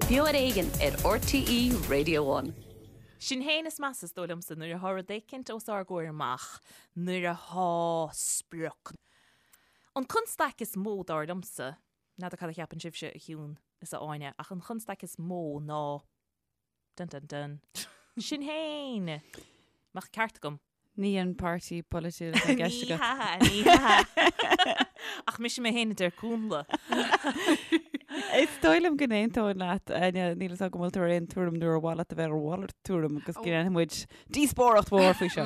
Beo ar Éigean ar RTÉ Radio One. Sinn féin is measa is dóigh liomsa nuair atá rud éicint os ár gcomhair amach, nuair atá sprioc. An constaic is mó dar liomsa, n'fheadar cad a cheapann sibhse a Shiún is a Áine, ach an chonstaic is mó ná Dun dun dun. Sinn Féin! Mbeadh ceart agam. Ní an páirtí polaitiúil atá i gceist Ní agat. hea, ní hea. Ach mise mé féin a deir Cúnla. Is dóigh liom go n-aontóinn leat, Áine, níl a fhios agam an bhfuil tú ar aon tuairim nó ar mhaith leat a bheith ar mhalairt tuairim agus go ndéanfaidh muid díospóireacht mhór faoi seo.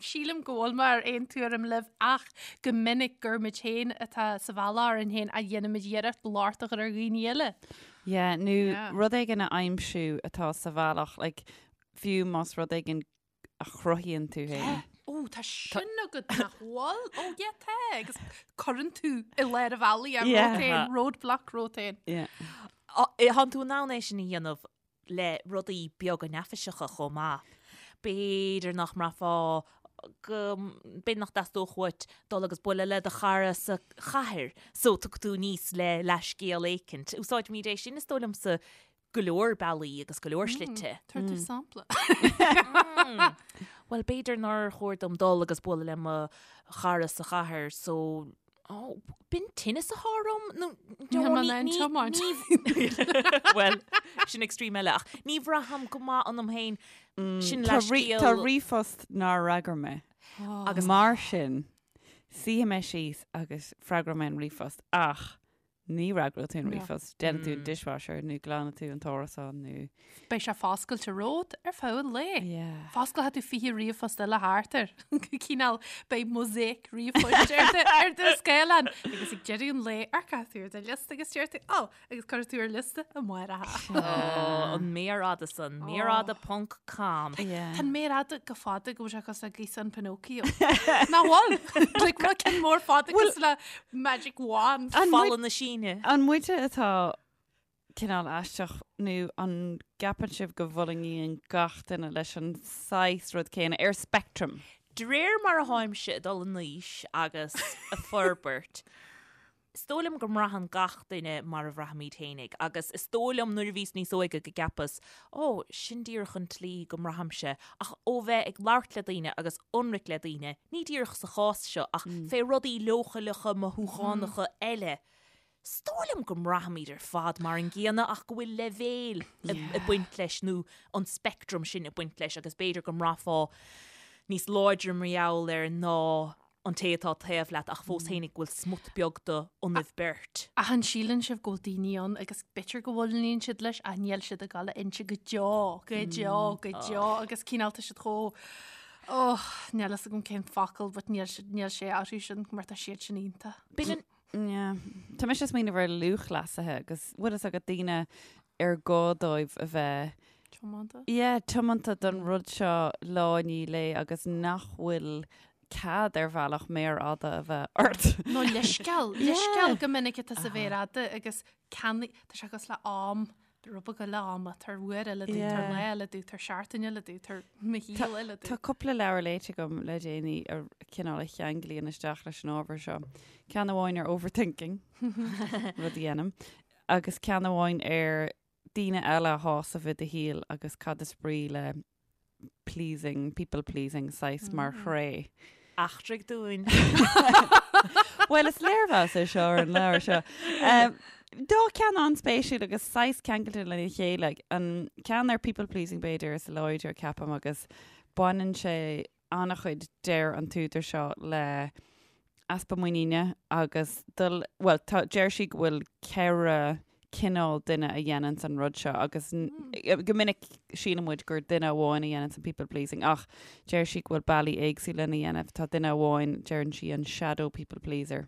Sílim go bhfuil mé ar aon tuairim libh ach go minic gur muid féin atá sa bhealach orainn féin a dhéanaimid iarracht locht a chur ar dhaoine eile. Yeah, nó Yeah. rud éigin a aimsiú atá sa bhealach, like, fiú más rud éigin a chruthaíonn tú féin. Yeah. Ó, tá sin agat nach bhfuil? Ó, yeah, tá. Agus cuireann tú i lár an bhealaigh é Yeah. romhat féin, roadblock romhat féin. Yeah. Tánn tú in ann é sin a dhéanamh le rudaí beaga neafaiseacha chomh maith. B'fhéidir nach mbraithfeá go, b'fhéidir nach dteastódh uait dul agus bualadh le do chara sa chathair so tiocfaidh tú aníos le leathscéal éicint. Úsáidimid é sin is dóigh liomsa go leor bealaí agus go leor slite. Tabhair tú sampla. Bhuel, b'fhéidir nár chóir dom dul agus bualadh le mo chara sa chathair so Ó, b'in tinneas atá orm nó Níl mé in ann tiomáint. Bhuel, sin extreme eile ach ní bhraithim go maith ionam féin sin Tá leithscéal. Tá ríomhphost nár fhreagair mé. Agus mar sin, suífidh mé síos agus freagróidh mé an ríomhphost ach ní fhreagróidh tú an ríomhphost. Déanfaidh tú an dishwasher nó glanfaidh tú an t-árasán nó. Beidh sé foscailte romhat ar feadh an lae. Yeah. Fosclóidh tú 20 ríomhphost eile thart air. Cineál beidh mosaic ríomhphoist ar do, ar do scáileán. Agus ag deireadh an lae amharcfaidh tú ar do liosta agus deir tú, ó, agus cuirfidh tú ar liosta amárach. Ó, an méar fhada san, méar fhada ponc com. Yeah. Tá an méar fhada chomh fada go bhfuil sé cosúil le gaosán Pinocchio. Nach bhfuil? Like rud cinn mór fada cosúil le magic wand. An Falla muid- na Síne. An muide atá cineál aisteach nó an gceapann sibh go bhfulaingíonn gach duine leis an saghas rud céanna ar spectrum? De réir mar a tháimse ag dul in aois agus ag forbairt, is dóigh liom go mbraitheann gach duine mar a bhraithimid fhéinig agus is dóigh liom nuair a bhíos níos óige go gceapas, ó, sin díreach an tslí go mbraithimse ach ó bheith ag labhairt le daoine agus ionraic le daoine, ní díreach sa chás seo ach fé rudaí leochaileacha mothúchánacha eile, Is dóigh liom go mbraithimid ar fad mar an gcéanna ach go bhfuil leibhéil ag baint leis nó an speictream sin ag baint leis agus b'fhéidir go mbraithfeá níos láidre mar gheall air ná an té atá taobh leat ach fós fhéinig go bhfuil smut beag de ionaibh beirt. Ach an síleann sibh go bhfuil daoine ann agus b'fhéidir go bhfulaingíonn siad leis ach níl siad ag dul a inse go deo, go deo, go deo agus cineál tá siad chomh oh, níl fhios agam cén focal but níl níl sé orthu sin mar tá siad sin iontach. B'in an Yeah. Tá mise ag smaoineamh ar lúthchleasaithe agus bhfuil fhios agat daoine ar gá dóibh a bheith Tiomanta. Yeah, tiomanta don rud seo lá i ndiaidh lae agus nach bhfuil cead ar bhealach méar fhada a bheith ort. Nó leithscéal, leithscéal go minic atá sa mhéar fhada agus ceannaigh, tá sé cosúil le am, rud beag eile ama, tabhair uair eile domh, tabhair lá eile domh, tabhair seachtain eile domh, tabhair mo shaol eile Tá domh. cúpla leabhar léite agam le déanaí a cineál a cheanglaíonn isteach leis an ábhar seo. Ceann amháin ar overthinking, rud a dhéanaim, agus ceann amháin ar daoine eile a shásamh i do shaol agus cad is brí le pleasing, people pleasing saghas mar thréith. Eachtraigh dúinn. Bhuel, is léirmheas é seo ar an leabhar seo. Dá ceann an-spéisiúil agus saghas ceangailte lena chéile. An ceann ar people pleasing b'fhéidir is láidre ceapaim agus baineann sé an-chuid deir an t-údar seo le easpa muiníne agus dul, bhuel, tá, deir sí go bhfuil 4 cineál duine a dhéananns an rud seo agus go minic síleann muid gur duine amháin a dhéananns an people pleasing ach deir sí go bhfuil bealaí éagsúla lena dhéanamh. Tá duine amháin, deireann sí an shadow people pleaser.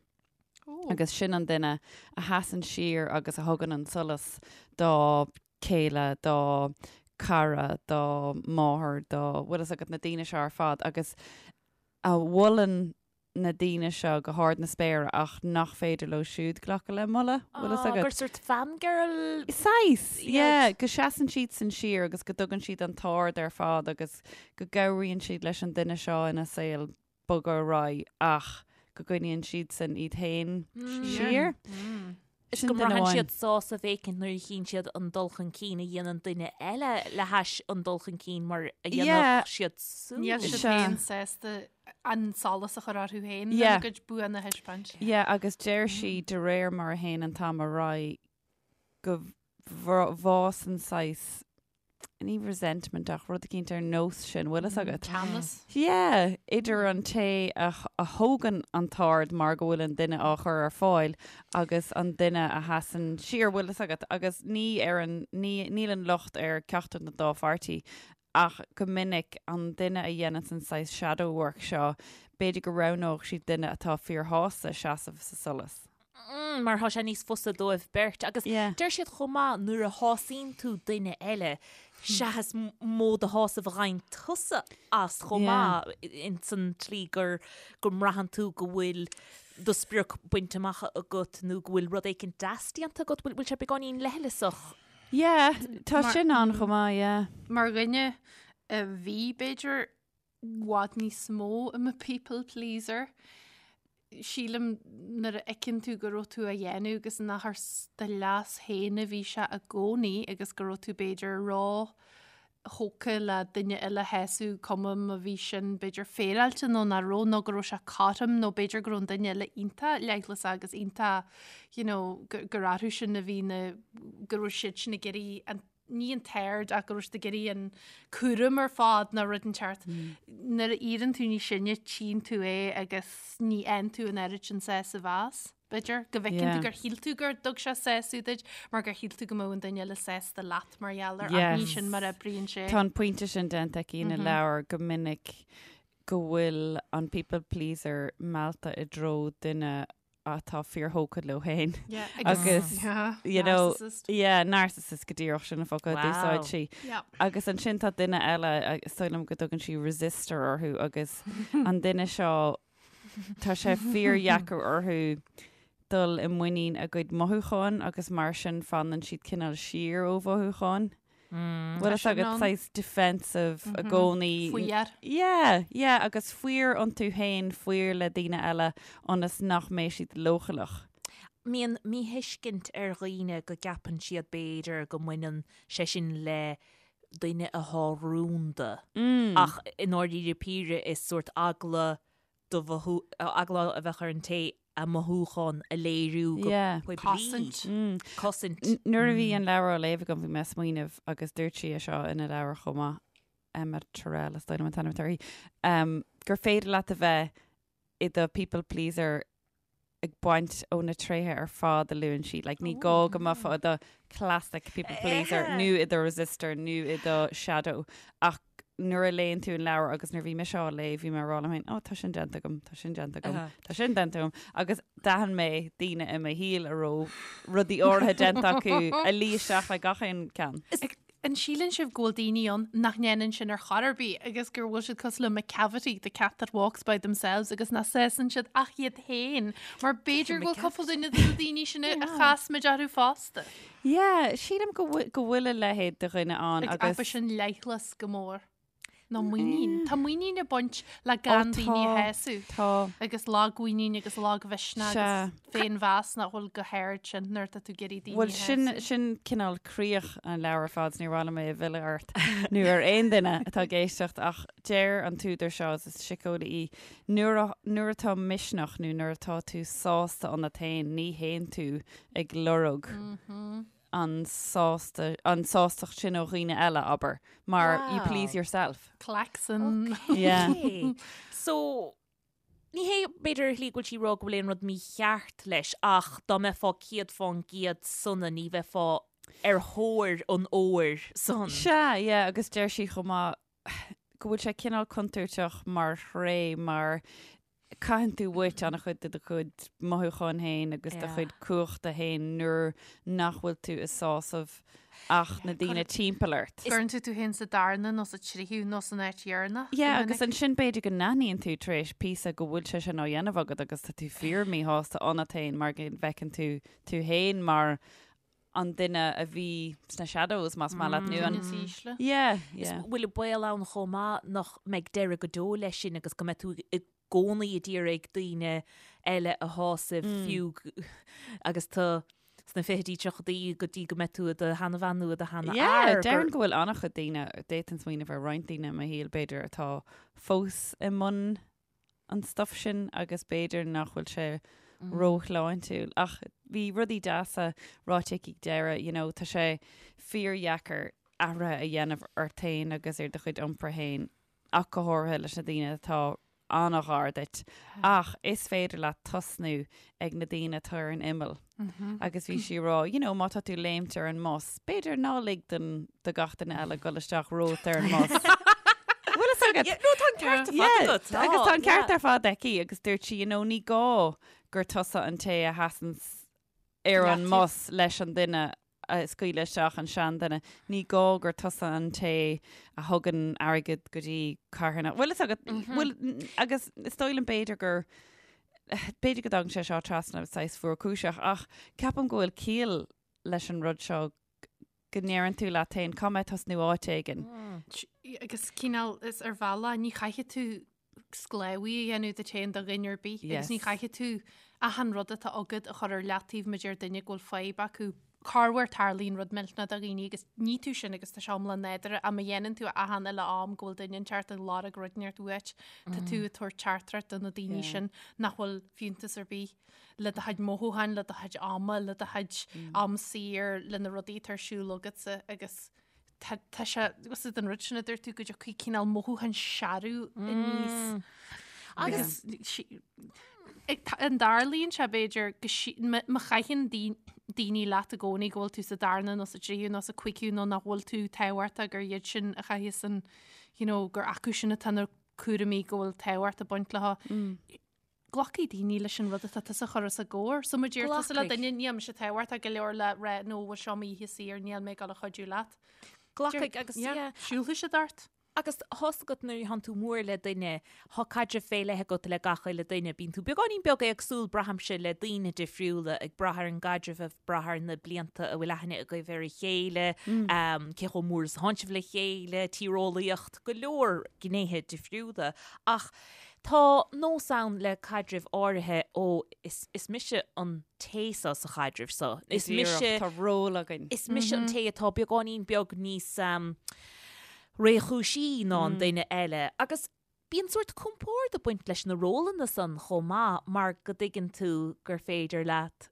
Agus sin an duine a sheasann siar agus a thugann an solas dá chéile, dá cara, dá máthair, dá, bhfuil fhios agat, na daoine seo ar fad agus a mholann na daoine seo go hard na spéire ach nach féidir leo siúd glacadh le moladh, bhfuil fhios agat? Gur sort fangirl Saghas, yeah, go seasann siadsan siar agus go dtugann siad an t-aird ar fad agus go gcabhraíonn siad leis an duine seo ina saol bogadh ar aghaidh ach go gcoinníonn siadsan iad féin siar. Is go mbraitheann siad sásamh éicint nuair a chíonn siad an dul chun cinn a dhéanann duine eile le hais an dul chun cinn mar a dhéanfadh siad súd. Níl siad féin sásta an solas a chur orthu féin lena gcuid buanna a thaispeáint. Yeah, agus deir sí de réir mar a théann an t-am ar aghaidh go bhfásann saghas ní resentment ach rud eicínt ar nós sin, bhfuil fhios agat? Teannas. Yeah, idir an té a thógann an t-aird mar go bhfuil an duine á chur ar fáil agus an duine a sheasann siar, bhfuil fhios agat? Agus ní ar an, ní, níl an locht ar ceachtar den dá pháirtí ach go minic an duine a dhéananns an saghas shadow work seo, b'fhéidir go roghnódh siad duine atá fíorshásta seasamh sa solas. Mm, mar tá sé níos fusa dóibh beirt. Agus Yeah. deir siad chomh maith nuair a shásaíonn tú duine eile, sea is mó de shásamh a gheibheann tusa as chomh Yeah. maith ins an tslí gur go mbraitheann tú go bhfuil do sprioc bainte amach agat nó go bhfuil rud éicint deas déanta agat, bhfuil bhfuil sé beagáinín leithleasach. Yeah, tá Mar- sin ann chomh maith, yeah. Mar dhuine a bhí, b'fhéidir, i bhfad níos mó i mo people pleaser. Sílim nuair a fheiceann tú go raibh tú á dhéanamh agus nach ar do leas féin a bhí sé i gcónaí agus go raibh tú b'fhéidir ró-thógtha le duine eile a shásamh, cuma má bhí sin b'fhéidir féaráilte nó nach raibh nó go raibh sé cothrom nó b'fhéidir go raibh an duine eile iontach leithleasach agus iontach you know gur orthu sin a bhí na go raibh siad sin ag iarraidh an ní an t-aird ach go raibh siad ag iarraidh an cúram ar fad nó rud inteacht. Nuair a éiríonn tú níos sine tchíonn tú é agus ní fhaigheann tú an oiread sin sásamh as, b'fhéidir, go bhfeiceann tú gur shíl tú gur dtug sé sásamh duit mar gur shíl tú go mbeadh an duine eile sásta leat mar gheall air ach ní sin mar a oibríonn sé. Tá an pointe sin déanta aici ina leabhar go minic go bhfuil an people pleaser meallta i dtreo duine atá fíorthógtha leo féin. Yeah, Agus, yeah, you know, narcissist. yeah, narcissist go díreach sin an focal a Wow. d'úsáid sí. Yeah. Agus ansin tá duine eile, is dóigh liom go dtugann sí resister orthu agus an duine seo tá sé fíordheacair orthu dul i muinín a gcuid mothúcháin agus mar sin fanann siad cineál siar ó mhothúcháin. Bhfuil fhios agat saghas defensive i gcónaí. Faor. Yeah, yeah, agus faor iontu féin, faor le daoine eile ionas nach mbeidh siad leochaileach. Mbíonn míthuiscint ar dhaoine go gceapann siad b'fhéidir go mbaineann sé sin le duine athá rúnda. Ach i ndáiríre píre is sórt eagla do mhothú, eagla a bheadh ar an té a mothúchán a léiriú go poiblí. Cosaint. Cosaint. Nuair a bhí an leabhar á léamh agam bhí mé ag smaoineamh agus dúirt sí é seo ina leabhar chomh maith, Emma Tyrrell is dóigh liom an t-ainm atá uirthi, gur féidir leat a bheith i do people pleaser ag baint ó na tréithe ar fad a luann sí. Like, ní gá go mbeifeá i do classic people pleaser nó i do resister nó i do shadow ach nuair a léann tú an leabhar agus nuair a bhí mise á léamh bhí mé ag rá liom féin, oh tá sin déanta agam, tá sin déanta agam, tá sin déanta agam agus d'aithin mé daoine i mo shaol a raibh rudaí áirithe déanta acu a luigh isteach le gach aon ceann. An síleann sibh go bhfuil daoine ann nach ndéanann sin ar chor ar bith agus gur bhfuil siad cosúil le Macavity, the cat that walks by themselves agus nach sásann siad ach iad féin mar b'fhéidir go bhfuil cúpla duine de na daoine sin a chas muid orthu fosta. Yeah, sílim go bhfuil go bhfuil a leithéid de dhuine ann Ag agus Ab é sin leithleas go mór. Nó muinín. Tá muinín ag baint le gan daoine a shásamh. Tá. Agus lagmhuinín agus lagmhisneach Sea. agus féinmheas nach bhfuil go hard sin nuair atá tú ag iarraidh daoine Bhuel a sin, shásamh. sin cineál críoch an leabhair ar fad, ní mhaith liom é a mhilleadh ort nó ar aon duine atá ag éisteacht ach deir an t-údar seo, is síceolaí í, nuair a, nuair atá misneach nó nuair atá tú sásta ionat féin ní théann tú ag lorg an sásta, an sástacht sin ó dhaoine eile, abair, mar you please yourself. Klaxon. Yeah. Okay. So, ní hé b'fhéidir ar shlí go bhfuil sí ag rá go bhfuil aon rud mícheart leis ach dá mbeifeá 100% sona ní bheifeá ar thóir an óir san. Sea, yeah, agus deir sí chomh maith go bhfuil sé cineál contúirteach mar thréith mar caitheann tú uait an-chuid de do chuid mothúcháin féin agus do chuid cumhachta féin nuair nach bhfuil tú ag sásamh ach na daoine timpeall ort. Cuireann tú tú féin sa darna nó sa tríú nó san áit dheireanach. Yeah, agus ansin b'fhéidir go n-aithníonn tú tar éis píosa go bhfuil sé sin á dhéanamh agat agus tá tú fíor míshásta ionat féin mar go bhfeiceann tú tú féin mar an duine a bhí sna shadows más maith leat nó an Duine is ísle. Yeah, yeah. Is bhfuil baol ann chomh maith nach mbeidh deireadh go deo leis sin agus go mbeidh tú i gcónaí ag iarraidh daoine eile a shásamh fiú agus tú. sna fichidí, tríochaidí go dtí go mbeidh tú i do sheanabhean nó i do sheanfhear. Yeah, déarfainn go bhfuil an-chuid daoine, d'fhéadfainn smaoineamh ar roinnt daoine i mo shaol b'fhéidir atá fós i mbun an stuff sin agus b'fhéidir nach bhfuil sé róshláintiúil. Ach bhí rudaí deasa ráite aici ag deireadh, you know, tá sé fíordheacair athruithe a dhéanamh ort féin agus ar do chuid iompair féin ach go háirithe leis na daoine atá an-ghar duit. Ach is féidir leat tosnú ag na daoine atá ar an imeall. Agus bhí sí ag rá, you know, má tá tú léimt ar an mbus, b'fhéidir ná lig don do gach duine eile dul isteach romhat ar an mbus. Bhfuil fhios agat? Yeah, no, tá an ceart ar fad Yeah, agat. agus tá an ceart Yeah. ar fad aici agus dúirt sí, you know, ní gá gur tusa an té a sheasann ar an Leat. mbus leis an duine a scaoileadh isteach an seanduine. Ní gá gur tusa an té a thugann airgead go dtí carthanacht. Bhfuil fhios agat, bhfuil, agus is dóigh liom b'fhéidir gur, b'fhéidir go dtagann sé seo trasna saghas fuarchúiseach, ach ceapaim go bhfuil ciall leis an rud seo go ndeireann tú leat féin, caithfidh mé tosnú áit éigin. Agus cineál is ar bhealach ní chaithfidh tú sclábhaí a dhéanamh díot féin do dhuine ar bith agus ní chaithfidh tú achan rud atá agat a chur ar leataobh má deir duine go bhfuil fadhb acu. Corruair tarlaíonn rud millteanach do dhaoine agus ní tú sin agus tá sé iomlán nádúrtha ach má dhéanann tú achan uile am go bhfuil duine inteacht ag lorg rud inteacht uait tá tú ag tabhairt teachtaireacht do na daoine sin nach bhfuil fiúntas ar bith le do chuid mothúcháin, le do chuid ama, le do chuid am saor, le na rudaí atá ar siúl agatsa agus tá tá sé agus an rud sin a dúirt tú go dtiocfaidh cineál mothúchán searbh aníos. Agus sí- ag ta- an dtarlaíonn sé b'fhéidir go sí- má má chaitheann daoi- daoine leat i gcónaí go bhfuil tú sa darna nó sa tríú nó sa cúigiú nó nach bhfuil tú tábhachtach gur iad sin a chaitheas an you know, gur acu sin atá na cúraimí go bhfuil tábhacht ag baint leo. Glacfaidh daoine leis an rud atá tusa a chur os a gcomhair. So má deir tusa le Glacfaidh. duine níl mise tábhachtach go leor le rá nó bhfuil seo m'oíche saor níl mé ag dul a chuidiú leat. Glacfaidh agus Yeah, yeah. Siúlfaidh siad ort. Agus tá's agat nuair a thánn tú mór le duine, thá caidreamh fé leith agat le gach uile duine. Bíonn tú beagáinín beag éagsúil, braithimse, le daoine difriúla, ag brath ar an gcaidreamh, ag brath ar na blianta a bhfuil aithne agaibh ar a chéile, cé chomh mór is a thánn sibh le chéile, tíreolaíocht, go leor gnéithe difriúla. Ach Tá nós ann le caidrimh áirithe, ó, is, is mise an té seo sa chaidreamh seo. Is mise. Tá ról againn. Is mise an té atá beagáinín beag níos réchúisí ná an duine eile. Agus bíonn sórt compord ag baint leis na rólanna san chomh maith mar go dtuigeann tú gur féidir leat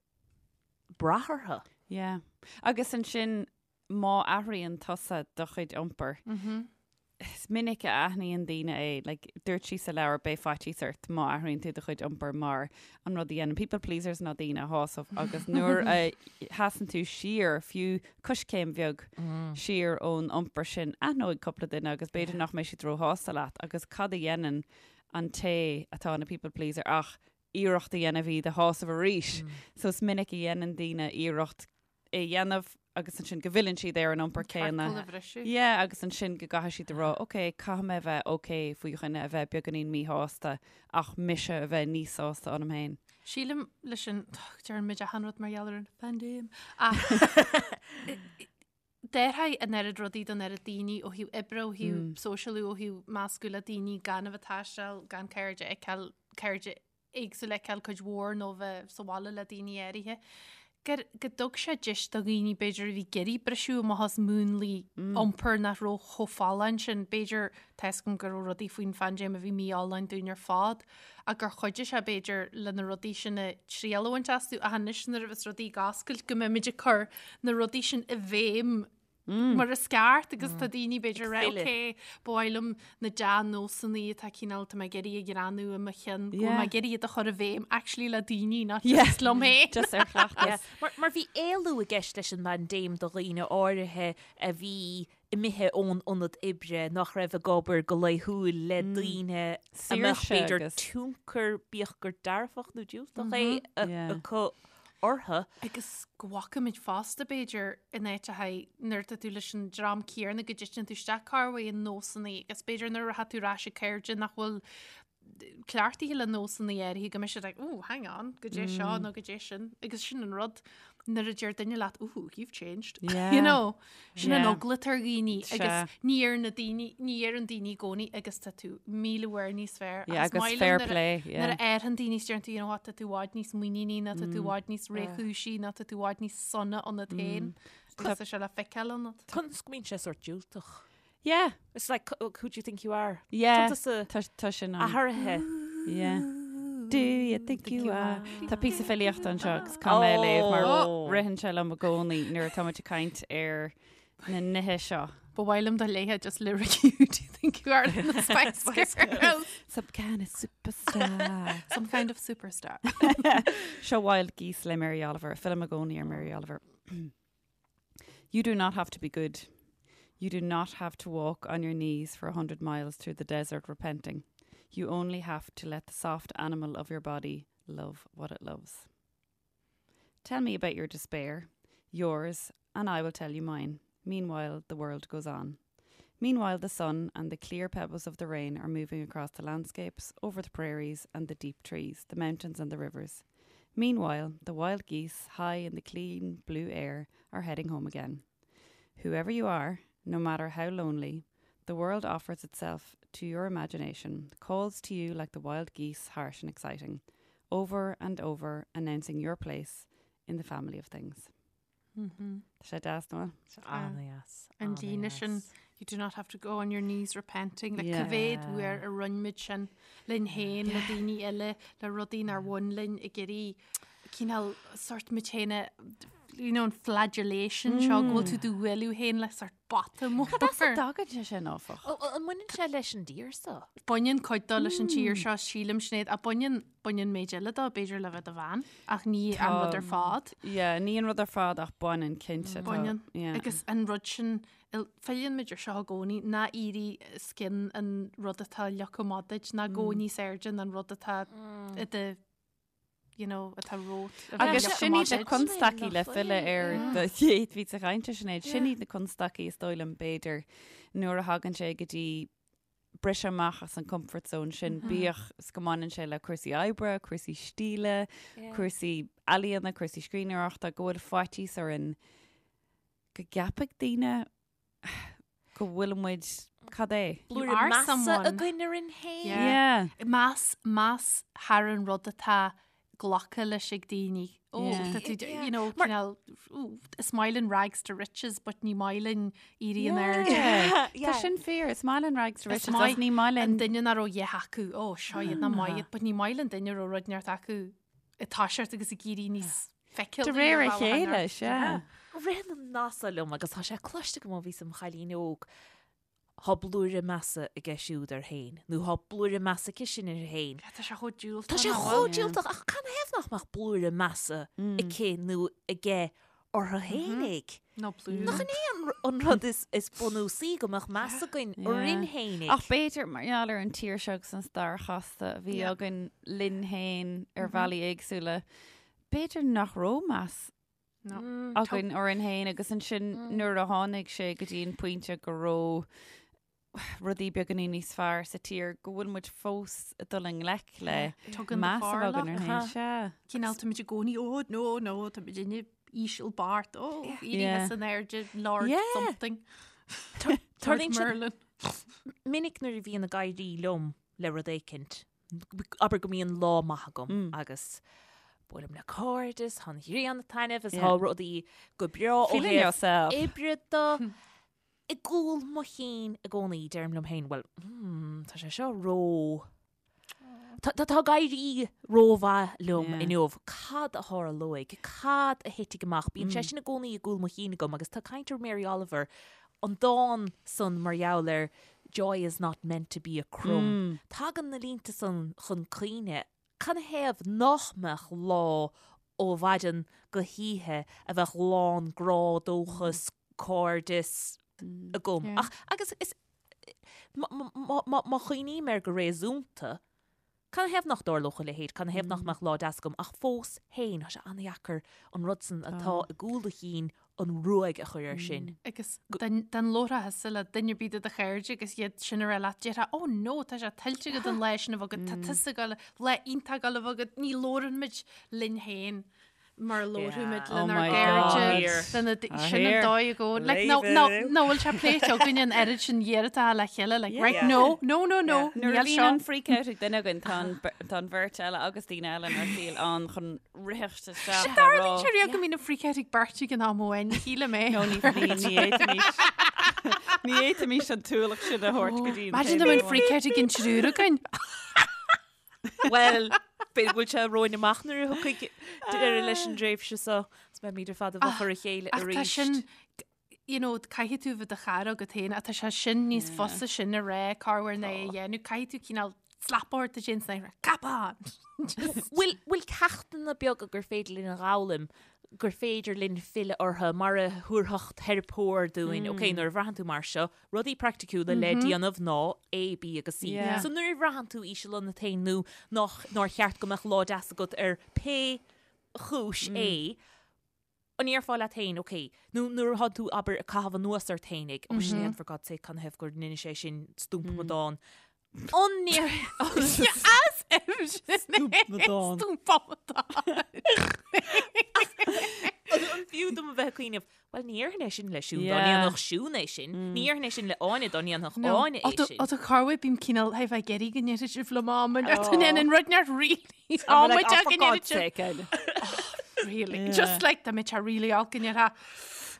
brath orthu. Yeah. Agus ansin má athraíonn tusa do chuid iompair, is minic a aithníonn daoine é, like, dúirt sí sa leabhar beidh faitíos ort má athraíonn tú do chuid iompair mar an rud a dhéanann people pleasers ná daoine a shásamh agus nuair a sheasann tú siar, fiú coiscéim bheag siar ón iompar sin, aithneoidh cúpla duine agus b'fhéidir nach mbeidh siad róshásta leat agus cad a dhéanann an té atá ina people pleaser ach iarracht a dhéanamh iad a shásamh arís. So is minic a dhéanann daoine iarracht é a dhéanamh agus ansin go bhfilleann siad ar an iompar céanna. Ciorcal a bhriseadh. Yeah, agus ansin go gcaithfidh siad a rá, ok, caithfidh mé a bheith ok faoi dhuine a bheith beagáinín míshásta ach mise a bheith níos sásta ionam féin. Sílim leis an, deireann muid achan rud mar gheall ar an phaindéim, ach d'athraigh an oiread rudaí don oiread daoine ó thaobh oibre, ó thaobh sóisialú, ó thaobh meascadh le daoine gan a bheith ag taisteal, gan cairde a fheiceáil, cairde éagsúil a fheiceáil cuid mhór nó bheith sa bhaile le daoine áirithe, gur, go dtug sé deis do dhaoine b'fhéidir a bhí ag iarraidh briseadh amach as múnlaí iompair nach raibh chomh folláin sin, b'fhéidir, tá 'fhios agam go raibh rudaí faoin phaindéim a bhí mífholláin dúinn ar fad, ach gur chuidigh sé b'fhéidir le na rudaí sin a triail a bhaint astu ach anois nuair a bheas rudaí ag oscailt go mbeimid ag cur na rudaí sin i bhfeidhm mar is ceart agus tá daoine b'fhéidir rá ok ba mhaith liom na dea-nósanna atá cineál tá mé ag iarraidh a ghreanú i mo chionn go bhfuil mé ag iarraidh iad a chur i bhfeidhm actually le daoine not just liom féin. Just ar chleachtas. Mar, mar bhí éalú i gceist leis an bpaindéim do dhaoine áirithe a bhí imithe ón ionad oibre, nach raibh ag obair go laethúil le daoine a mbeadh b'fhéidir tionchar, bíodh gur dearfach nó diúltach é, acu orthu. Agus go bhfacaimid fosta, b'fhéidir, in áiteacha nuair atá tú leis an dream céanna go dtiteann tú isteach corruair i nósanna agus b'fhéidir nuair atá tú ar ais ag cairde nach bhfuil cleachtaithe le nósanna áirithe go mbeidh siad like, oh, hang on, goidé seo nó goidé sin. Agus sin an rud. nuair a deir duine leat, ooh, you've changed. Yeah. You know, sin an Yeah. eagla atá ar dhaoine Sea. agus ní ar na daoine, ní ar an daoine i gcónaí agus tá tú 1000 uair níos fearr. Yeah, Agus agus maith liom fair nuair a- play, yeah. Nuair a fhaigheann daoine is deireann tú, you know what, tá tú i bhfad níos muiníní ná tá tú i bhfad níos réchúisí ná tá tú i bhfad níos sona ionat féin. Agus tá sé le feiceáil ionat. Conas go mbíonn sé sórt diúltach. Yeah. It's like, who do you think you are? Yeah. Tá Tá tá sin ann. athraithe. Yeah. Do you think you are? Tá píosa filíochta anseo agus caithfidh mé a léamh mar Oh. ritheann sé liom i gcónaí nuair atá muid ag caint ar na nithe seo. Ba mhaith liom do léithe just lyric who do you think you are in the Spice Girls. Some kind of superstar. Some kind of superstar. Seo Wild Geese le Mary Oliver, fillim i gcónaí ar Mary Oliver. You do not have to be good. You do not have to walk on your knees for 100 miles through the desert repenting. You only have to let the soft animal of your body love what it loves. Tell me about your despair, yours, and I will tell you mine. Meanwhile, the world goes on. Meanwhile, the sun and the clear pebbles of the rain are moving across the landscapes, over the prairies and the deep trees, the mountains and the rivers. Meanwhile, the wild geese, high in the clean blue air, are heading home again. Whoever you are, no matter how lonely, the world offers itself to your imagination, calls to you like the wild geese, harsh and exciting, over and over, announcing your place in the family of things. Tá sé deas nó? An-deas. An líne sin, you do not have to go on your knees repenting. Like Yeah. cá mhéad uair a rinne muid sin linn féin, le daoine eile, le rudaí nár bhain linn ag iarraidh cineál sort muid féin a you know, an flagellation seo go bhfuil tú do bhualadh féin le sort bata mór. Cad as a dtagann sé sin áfach? An mbaineann sé leis an dtír seo? Baineann cuid dó leis an tír seo sílim Sinéad, ach baineann baineann méid eile dó b'fhéidir le bheith i do bhean ach ní an rud ar fad. Yeah, ní an rud ar fad ach baineann cinnte. tá- Baineann. Yeah. Agus an rud sin filleann muid ar seo i gcónaí ná éirí os cionn an rud atá leagtha amach duit, ná gabh níos airde ná an rud atá i do you know, atá romhat. Agus sin iad na constaicí le filleadh ar do chéad phíosa cainte Sinéad, sin iad na constaicí is dóigh liom b'fhéidir nuair a thagann sé go dtí briseadh amach as an comfort zone sin, bíodh is go mbaineann sé le cúrsaí oibre, cúrsaí stíle, cúrsaí ealaíona, cúrsaí scríbhneoireachta, go bhfuil faitíos orainn go gceapfaidh daoine go bhfuil muid, cad é? Blúire You are measa someone. againn orainn féin. Yeah. Yeah. Meas, meas thar an rud atá glactha leis ag daoine. Ó, Yeah. tá tú, you know, cineál, ooh, is maith linn rags to riches, but ní maith linn éirí in airde. Yeah. Tá sin fíor, is maith linn rags to Is riches, maith ach ní maith An linn. duine nach raibh a dhath acu, ó, seo iad nach maith iad, but ní maith linn duine a raibh rud neart acu ag toiseacht agus ag éirí níos feiceálaí De réir a ar bhealach an chéile, neart. sea. Ritheann an nath so liom agus tá sé cloiste agam ó bhíos im chailín óg, Thá blúire measa aige siúd air féin, nó thá blúire measa aici sin uirthi féin. Tá sé chomh diúltach. Tá sé nach chomh bhfuil? diúltach, ach canathaobh nach mbeadh blúire measa aici nó aige orthu fhéinig? Nó blúire. Nach in é an rud is bunúsaí go mbeadh meas againn orainn fhéinig? Ach b'fhéidir, mar gheall ar an tír seo agus an stair chasta a bhí againn linn féin ar bhealaí éagsúla, b'fhéidir nach raibh meas againn orainn féin agus ansin nuair a tháinig sé go dtí an pointe go raibh rudaí beagáinín níos fearr sa tír go bhfuil muid fós ag dul i ngleic le Tugann meas a bheith againn orainn féin. Sea. Cineál táimid i gcónaí, ó no, no, táimid inne íseal beart, ó, éirithe san airde, Lord something. Tarlaíonn sé Merlin. minic nuair a bhíonn ag éirí liom le rud éicint, abair go mbíonn lá maith agam agus buailim le cairde is tá an ghrian ag taitneamh is tá rudaí go breá ó Feeling thaobh yourself. oibre de. I gcúl mo chinn i gcónaí deirim liom féin, bhuel, hmm, tá sé seo ró... Tá tá ag éirí rómhaith liom Yeah. inniu. Cad a tharlóidh? Cad a thitfidh amach? Bíonn sé sin i gcónaí i gcúl mo chinn agam agus tá caint ar Mary Oliver, an dán san mar gheall ar Joy is not meant to be a crumb. Tagann na línte san chun cuimhne. Canathaobh nach mbeadh lá ó mhaidin go hoíche a bheadh lán grá, dóchas, cairdeas agam. Ach, agus is, má chuimhním air go réasúnta, Canathaobh nach dtarlódh a leithéid? Canathaobh nach mbeadh lá deas agam? Ach fós féin, tá sé an-dheacair an rud san atá i gcúl do chinn an ruaig a chur air sin. Agus dá labhrófá thusa le duine ar bith de do chairde agus iad sin a rá leat, déarfá, oh no, tá sé tuillte agat an lá sin a bheith agat, tá tusa ag dul, lá iontach ag dul a bheith agat, ní labhrann muid linn féin. Mar a labhraímid Oh lenár my gcairde, God. lena d- Ah, sin an here. dóigh i gcónaí. Like, no, no, no, bhfuil sé pléite againn an oiread sin iarrata le chéile, like, right, Yeah. no, no, no, no, Nuair a níl bhíonn seo. an freak out ag duine againn, tá an ber- tá an bheirt eile agus daoine eile inár saol ann chun ritheacht isteach Sin a tarlaíonn rá. sé riamh go mbíonn an freak out ag beirt ag an am amháin, shíle mé. No, ní ní ní fhéadfaimis. Ní fhéadfaimis an t-ualach sin a thabhairt go dtí an Imagine taobh dá mbeadh amháin. freak out ag an triúr againn. Well, b'fhéidir go bhfuil sé romhainn amach nuair a thiocfaidh deireadh leis an dtréimhse seo, is beimid ar fad i bhfochair a chéile Ach tá arís. sin, you know, caithfidh tú bheith do chara agat féin, ach tá sé sin níos fusa sin a rá, corruair ná é a dhéanamh, caithfidh tú cineál slap ort a déanamh san come on! Just- Bhfuil bhfuil ceachtanna beaga gur féidir linn a dh'fhoghlaim, gur féidir linn filleadh orthu mar a thabharfadh teiripeoir dúinn, ok, nuair a bhraitheann tú mar seo, rudaí praiticiúla le déanamh ná A, B agus C. Yeah. So nuair a bhraitheann tú íseal ionat féin nó nach nár cheart go mbeadh lá deas agat ar pé chúis é, an ndéarfá leat féin, ok, nó nuair atá tú, abair, ag caitheamh anuas ort féinig, oh Sinéad, for God's sake, canathaobh gur rinne sé sin stúmpamadán. An ndéar... As if Stúmpamadán. Stúmpamadán. An fiú dom a bheith ag cuimhneamh, Bhuel, ní dhéarfainn é sin le Siún dá Yeah. ndéanfadh Siún é sin. Ní dhéarfainn é sin le Áine dá ndéanfadh Áine é sin. Ó tá corruair bím cineál hé bheith ag iarraidh go ndéarfaidh sibh liom am an an rud neart really Like, oh, amaideach for go God's ndéarfaidh sibh. sake, Áine. Really. Yeah. Just like dá mbeadh sé really olc go ndéarfá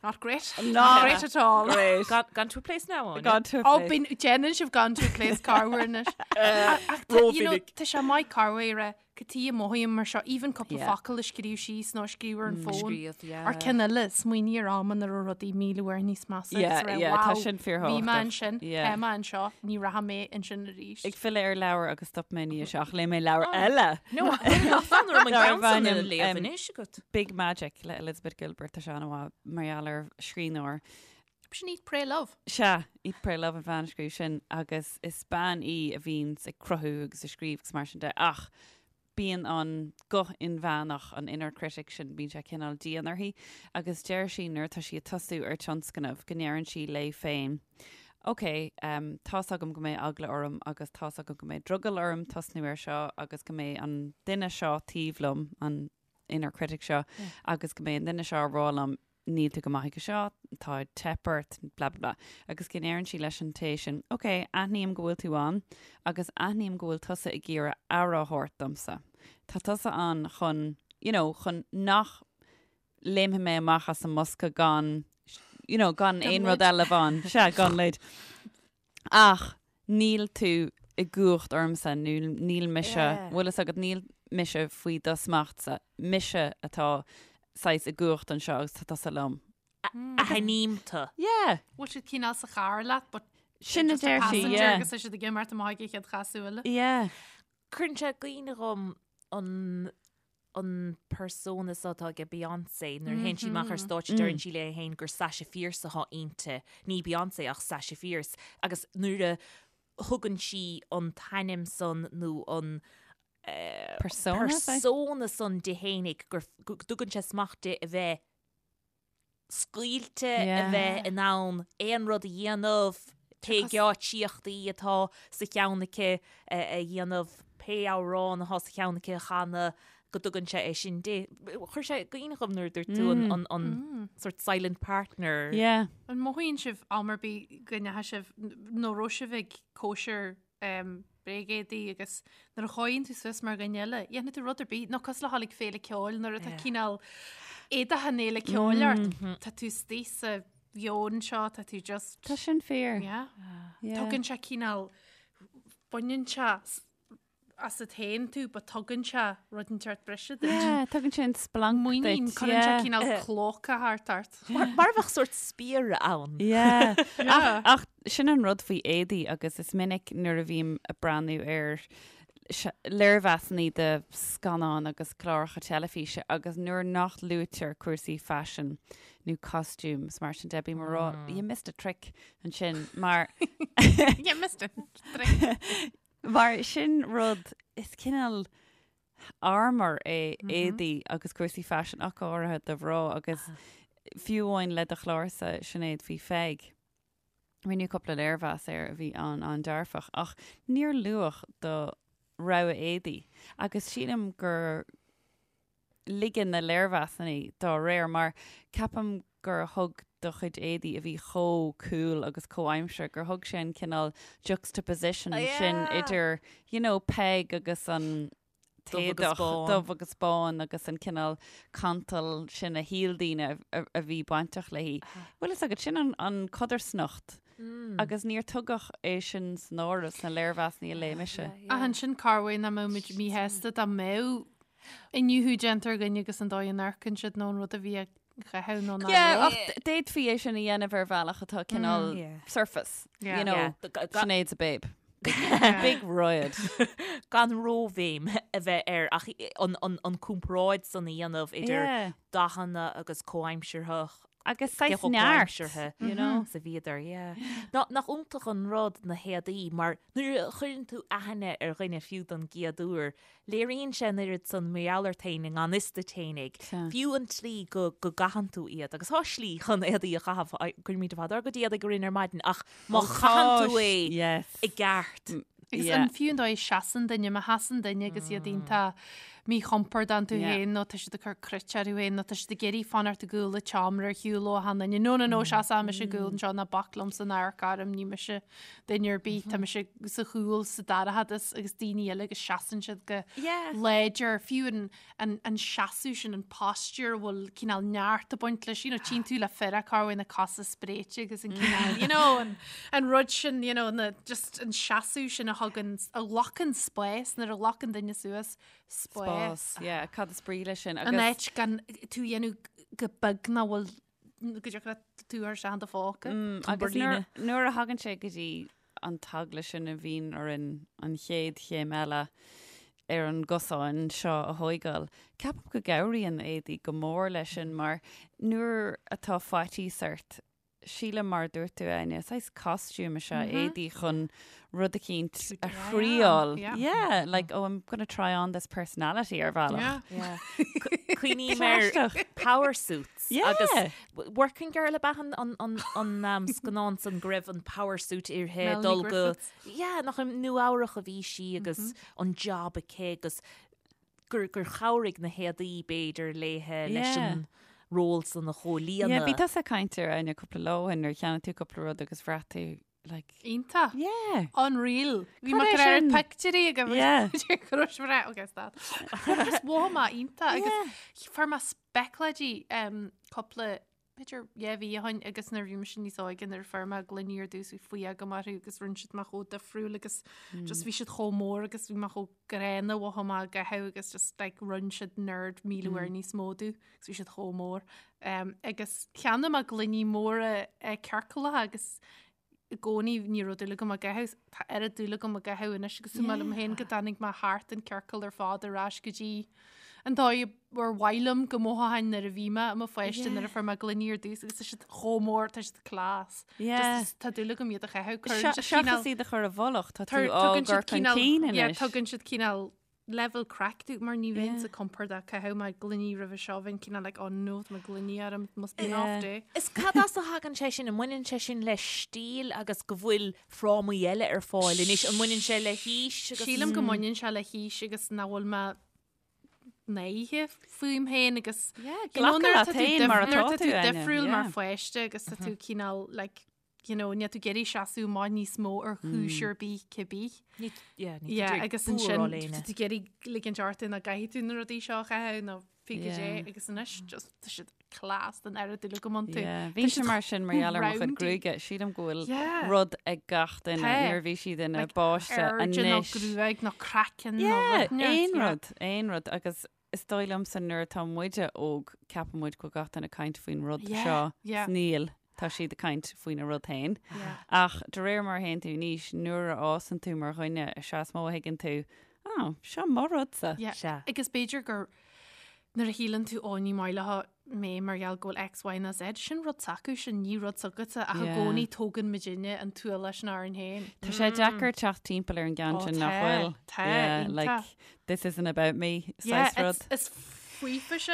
not great. Not Not great at all. Great. Gone, gone to a place now, Áine. Gone to a Ó place. bíonn déanann sibh gone to a place corruair anois. Ach tá- you know, Rómhinic. tá sé maith corruair a Cad chuige a mothaím mar seo, even cúpla Yeah. focal a scríobh síos nó a scríobh ar an bhfón. Scríobh, yeah. Ar ceann eile, smaoinigh ar am ina raibh rudaí 1000 uair níos measa agus Yeah, a rá, yeah, tá wow, sin bhí fíorthábhachtach. mé ansin, Yeah. tá mé anseo, ní rachaidh mé ansin arís. Ag filleadh ar leabhar agus stop mé ní ach léigh mé leabhar eile. No, fan orm an Darb ceann san a ainm, léamh um, anois agat. Big Magic le Elizabeth Gilbert tá sé an-mhaith mar gheall ar scríbhneoir. Sin Eat Pray Love. Sea, Eat Pray Love an bhean a scríobh sin agus is bean í a bhíonns ag cruthú agus ag scríobh agus mar sin de ach bíonn an guth inmheánach, an inner critic sin, bíonn sé cineál dian uirthi agus deir sí nuair atá sí ag tosú ar tionscnamh go ndeireann sí léi féin Ok, um, tá's agam go mbeidh eagla orm agus tá's agam go mbeidh drogall orm tosnú air seo agus go mbeidh an duine seo taobh liom, an inner critic seo, agus go mbeidh an duine seo ag rá liom níl tú go maith ag seo, tá ag teip ort, blah blah blah. Agus go ndeireann sí leis an té sin, ok, aithním go bhfuil tú ann agus aithním go bhfuil tusa ag iarraidh aire a thabhairt domsa. Tá tusa ann chun, you know, chun nach léimfidh mé amach as an mbosca gan, you know, gan aon rud eile bheith ann. Sea, gan leid. Ach níl tú i gcumhacht ormsa, nó níl mise, Yeah. bhfuil fhios agat, níl mise faoi do smachtsa, mise atá saghas i gcumhacht anseo agus tá tusa liom. Aithním tú. Yeah. Bhfuil siad cineál sa charr leat, but Sin a just a deir sí, passenger yeah. agus tá siad ag imeacht amach ag an chéad chasadh eile. Yeah. Cuireann sé i gcuimhne dhom an an persona seo atá ag Beyoncé nuair a théann sí amach ar stáitse deireann sí léi féin gur Sasha Fierce atá inti, ní Beyoncé ach Sasha Fierce agus nuair a thugann sí an t-ainm san nó an Persona, persona san di fhéinig gur go dtugann sé smacht di a bheith scaoilte, a bheith in ann aon rud a dhéanamh, pé geáitsíochtaí atá sa cheann aici a dhéanamh, pé amhrán atá sa cheann aici a chanadh, go dtugann sé é sin di. Chuir sé i gcuimhne dhom nuair a dúirt tú an an sort silent partner. Yeah. An mothaíonn sibh am ar bith go ndeachaigh sibh nó raibh sibh ag cóisir um, bréagéadaí agus nuair a chothaíonn tú suas mar dhuine eile, dhéanfaidh tú rud ar bith, nó cosúil le dhul ag féile ceoil nuair atá cineál éadaithe an fhéile ceoil ort, tá tú istigh sa mheon seo, tá tú just... Tá sin fíor. Yeah. Yeah. Tugann sé cineál, baineann sé asat féin tú, but tugann sé rud inteacht breise duit. Yeah, tugann sé an splanc Muinín, duit, cuireann sé yeah. cineál clóca thart ort. Mar mar a bheadh sort spiaire ann. Yeah. Yeah. Ach, ach sin an rud faoi éadaí agus is minic nuair a bhím ag breathnú ar léirmheasanna de scannáin agus cláracha teilifíse agus nuair nach luaitear cúrsaí faisin nó costumes mar sin de, bím ag rá, you missed a trick ansin mar You missed a trick. Mar sin rud, is cineál armor é éadaí agus cúrsaí faisin ach go háirithe do mhná agus fiú amháin le do chlársa Sinéad faoi Pheig. Rinneadh cúpla léirmheas air a bhí an-an-dearfach ach níor luadh do rogha éadaí agus sílim gur. ligean na léirmheasanna dá réir mar ceapaim gur thug do chuid éadaí a bhí chomh cool agus comhaimseartha gur thug sé an cineál juxtaposition sin idir you know Peig agus an t-éadach dubh agus bán agus an cineál cantal sin a shíl daoine a bhí bainteach léi. Bhfuil fhios agat, sin an codarsnacht agus níor tugadh é sin san áireamh sna léirmheasanna a léigh mise. Ach ansin cá bhfios nach mbeadh muid míshásta dá mbeadh iniúchadh déanta ar dhuine agus an dóigh a n-amharcann siad nó an rud a bhí á chaitheamh nó nach Yeah, ach d'fhéadfaí é sin a dhéanamh ar bhealach atá cineál surface, you know, Sinéad's a babe. Big riot. Gan róbhéim a bheith air ach an comparáid san a dhéanamh idir dathanna agus comhaimsearthach Agus saghas neart, you know. Sa bhíodar, yeah. Nach iontach an rud na héadaí mar nuair a chuireann tú aithne ar dhuine fiú don gcéad uair, Léiríonn sé an oiread san mar gheall ort féin i ngan fhios duit fhéinig, fiú an tslí go go gcaitheann tú iad. Agus tá slí chun éadaí a chaitheamh, cuirimid ar fad ár gcuid éadaigh orainn ar maidin, ach má chaitheann tú é i gceart. Agus an fiú an dóigh a seasann duine, má sheasann duine agus iad iontach míchompordach iontu féin nó tá siad ag cur cruit orthu féin nó tá siad ag iarraidh fanacht i gcúl an tseomra ar shiúl ó achan duine. No, no, no, seasfaidh mise i gcúl anseo ná bac liomsa ná amharc orm, ní mise duine ar bith, tá mise sa chúl sa dorchadas agus daoine eile agus seasann siad go láidir, fiú an, an, an seasamh sin, an posture a bhfuil cineál neart ag baint leis, you know, tchíonn tú le fir cá bhfuil na cosa spréite agus an cineál, you know, an, an rud sin, you know, na, just an seasamh sin a thugann, a ghlacann spás, nuair a ghlacann duine suas spás. Spás, yeah, cad is brí leis sin agus. An áit gan tú a dhéanamh go beag nach bhfuil go dtiocfadh leat tú a chur isteach in do phóca. Agus nuair a thagann sé go dtí an t-eagla sin a bhíonn orainn an chéad chéim eile ar an gcosán seo a thóigeáil, ceapaim go gcabhraíonn éadaí go mór leis sin mar nuair atá faitíos ort, sílim mar a dúirt tú Áine, saghas costume is ea éadaí chun rud eicínt a thriáil. Yeah, like, oh, I'm gonna try on this personality ar bhealach. Yeah. Cuimhním ar power suits agus Working Girl ab ea an scannán san go raibh an power suit uirthi dul go yeah, nach i Nua Eabhrach a bhí sí agus an job aici agus gur gur chabhraigh na héadaí b'fhéidir léithe leis an ról san a chomhlíonadh. Yeah, bhí tusa ag caint air Áine cúpla lá ó shin nuair a cheannaigh tú cúpla rud agus bhraith tú like Iontach. Yeah. Unreal. Bhí mé ag cur pictiúirí agam. Yeah. Go raibh sé breá, okay, stop. Just mhothaigh mé iontach agus fuair mé specláidí um, cúpla b'fhéidir yeah mhí ó shin agus nuair a bhí mise níos óige nuair a fuair mé gloiní ar dtús bhí fuath agam orthu agus rinne siad mé chomh difriúil agus just bhí siad chomh mór agus bhí mé chomh gránna mhothaigh mé á gcaitheamh agus just like rinne siad nerd 1000 uair níos mó domh agus bhí siad chomh mór. Um, agus cheannaigh mé gloiní móra uh, ciorcalacha agus i gcónaí ní raibh dúil agam á gcaitheamh, tá oiread dúil agam á gcaitheamh anois agus is maith liom féin go dtáinig mé thart an ciorcal ar fad ar ais go dtí an dóigh ar mhaith liom go mothóchainn nuair a bhí mé i mo pháiste nuair a fuair mé gloiní ar dtús agus tá siad chomh mór, tá siad class. Yeah. Just tá dúil agam iad a chaitheamh. Cuireann siad Seachas cineál- iad a chur i bhfolach, tá tú Tar- á tugann siad gcur chun cineál- cinn yeah, anois. tugann siad cineál level craic domh mar ní bheinn Yeah. sa compordach ag caitheamh mo ghloiní roimhe seo bheinn cineál like oh no tá mo gloiní orm it must be an off Yeah. day. Is cad as a thagann sé sin? An mbaineann sé sin le stíl agus go bhfuil frámaí eile ar fáil anois? An mbaineann sé le haois agus. Sílim go mbaineann sé le haois agus nach bhfuil mé náirithe fúm féin agus Yeah, you know, glacadh nuair leat atá tú féin dif- mar nuair atá atá tú, tú Áine, difriúil mar yeah. pháiste agus tá tú cineál like you know, níl tú ag iarraidh seasamh amach níos mó ar chúis ar bith cibé. Ní, yeah, ní Yeah, tú agus ansin tá tú ag iarraidh ligint ort nach gcaithfidh tú na rudaí seo a chaitheamh nó pé cad é Yeah. agus anois just tá siad class den oiread dúil agam iontu. Yeah, Bhí sé mar sin mar gheall ar mo chuid roundy. gruaige. Sílim go bhfuil Yeah. rud ag gach duine Tá. nuair a bhí siad ina Like, bpáiste airde nó anois. gruaig nó craiceann nó Yeah, rud neart, aon yeah. rud, aon rud agus Is dóigh liomsa nuair atá muide óg, ceapann muid go bhfuil gach duine ag caint faoin rud Yeah, seo. yeah. 's Níl, tá siad ag caint faoina rud féin. Yeah. Ach de réir mar a théann tú in aois, nuair a fhásann tú mar dhuine, is ea is mó a thuigeann tú, oh, seo mo rudsa. Yeah. Sea. Agus b'fhéidir gur nuair a shíleann tú ó ní maith leo mé mar gheall go bhfuil X, Y nó Z, sin rud s'acu, sin ní rud s'agatsa ach i Yeah. gcónaí tógann muidinne an t-ualach sin orainn féin. Tá sé deacair teacht timpeall ar an gceann Ó, sin nach tá, bhfuil. tá, Yeah, iontach. like, this isn't about me, Yeah, saghas rud. it's- Is faofa sé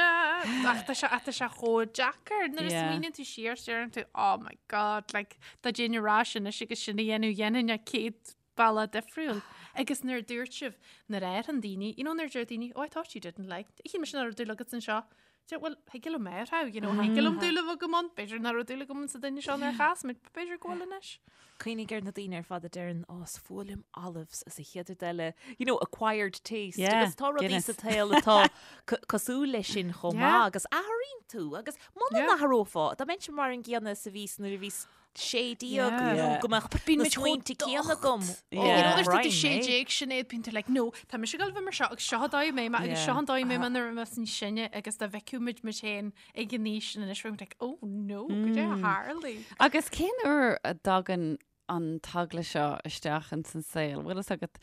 ach tá sé ach tá sé chomh deacair nuair a Yeah. smaoiníonn tú siar deireann tú oh my god like dá dtéinn ar ais anois agus sin a dhéanamh dhéanfainn é 100 bealach difriúil. Agus nuair a dúirt sibh, nuair a fhaigheann daoine, you know, nuair a deir daoine, oh, I thought you didn't like, shíl mise nach raibh dúil agat anseo. Deir, well, thig liom é a you know, thig liom dúil a bheith agam ann, b'fhéidir nach raibh dúil agam sa duine seo nuair a chas muid, b'fhéidir go bhfuil anois. Cuimhnigh ar na daoine ar fad a deireann, oh, is fuath liom olives is an chéad rud eile, you know, acquired taste. Yeah, Agus tá rudaí Guinness. sa tsaol atá co- cosúil leis sin chomh Yeah. maith agus athraíonn tú agus muna Yeah. n-athrófá, dá mbeinnse mar an gcéanna is a bhíos nuair a bhíos 16 Yeah. nó Yeah. go mbeadh Bíonn na muid chomh smaointe céanna agam. docht. Yeah. You know, there's Ryan, the sé eh? déag Sinéad bíonn tú like, no, tá mise ag gabháil a bheith mar seo agus seo an dóigh a mbeidh mé agus Yeah. seo an dóigh a mbeidh mé nuair a bheas níos sine agus dá bhfeicfeadh muid muid féin ag an aois sin anois bheadh muid like, oh no, goidé a tharla. Agus cén uair a dtagann an t-eagla seo isteach ins an saol? Bhfuil fhios agat,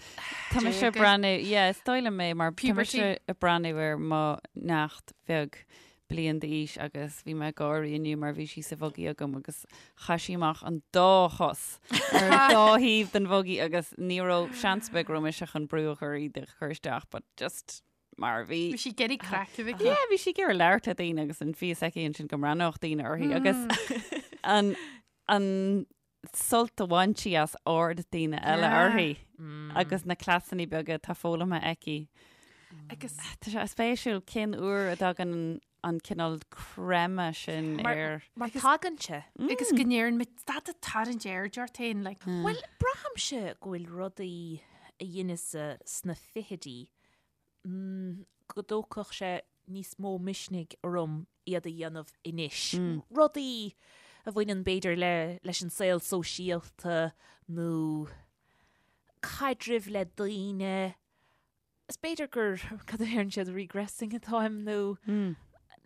tá mise ag Déaga. breathnú, yeah, is dóigh liom é mar tá Puberty. mise ag breathnú ar mo neacht bheag bliain d'aois agus bhí mé ag gáirí inniu mar bhí sí sa bhugaí agam agus chaith sí amach an dá chos ar an dá thaobh den bhugaí agus ní raibh seans ar bith go raibh mise chun brú a chur í a chur isteach but just mar bhí. Bhí sí ag iarraidh craic a bheith aici. Yeah, bhí sí ag iarraidh labhairt le daoine agus an fios aici ansin go mbreathnódh daoine uirthi agus an an sult a bhain sí as aird daoine eile Yeah. uirthi agus na cleasanna beaga atá foghlamtha aici. Agus Tá sé spéisiúil cén uair a dtagann an cineál creimeadh sin Mar- ar. Mar tagann sé. agus go ndeireann muid stad ag tarraingt aird ort féin like Bhuel, braithimse go bhfuil rudaí a dheineas-sa sna fichidí go dtógfadh sé níos mó misnigh orm iad a dhéanamh anois. Rudaí a bhaineann b'fhéidir le leis an saol sóisialta nó caidrimh le daoine. Is b'fhéidir gur, cad a deireann siad, regressing atáim nó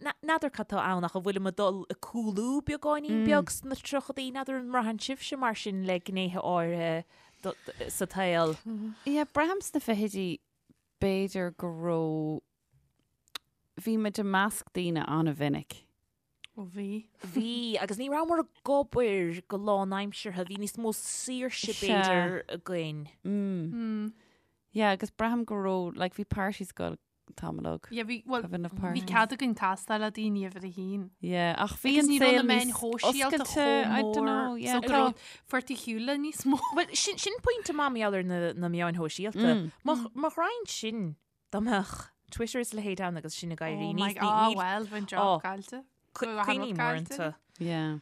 n'fheadar cad tá ann ach an bhfuilim ag dul ag cúlú beagáinín beag sna tríochadaí, n'fheadar an mbraitheann sibhse mar sin le gnéithe áirithe sa tsaol? Yeah, braithim sna fichidí b'fhéidir go raibh, bhí muid i measc daoine an-mhinic. Ó bhí. Bhí, agus ní rabhamar ag obair go lánaimseartha, bhí níos mó saoirse b'fhéidir againn. Mm. Yeah, agus braithim go raibh, like, bhí parties ag goil tamall óg. Yeah, bhí, well, Have enough bhí parties. cead againn castáil le daoine uimhir a haon. Yeah, ach bhí Agus an ní raibh saol na meáin níos shóisialta oscailte, chomh I don't mór, know, yeah, so go tá. raibh fuair tú shiúl le níos mó. Bhuel, sin, sin pointe maith mar gheall ar na, na meáin shóisialta. Má, má ghrainn sin, dá mbeadh Twitter is a leithéid ann agus sinn ag éirí Oh my níos, God, ní, ah, ní, well, bheinn oh, job caillte. cu- Bheadh an rud cuimhním caillte. uaireanta. Yeah.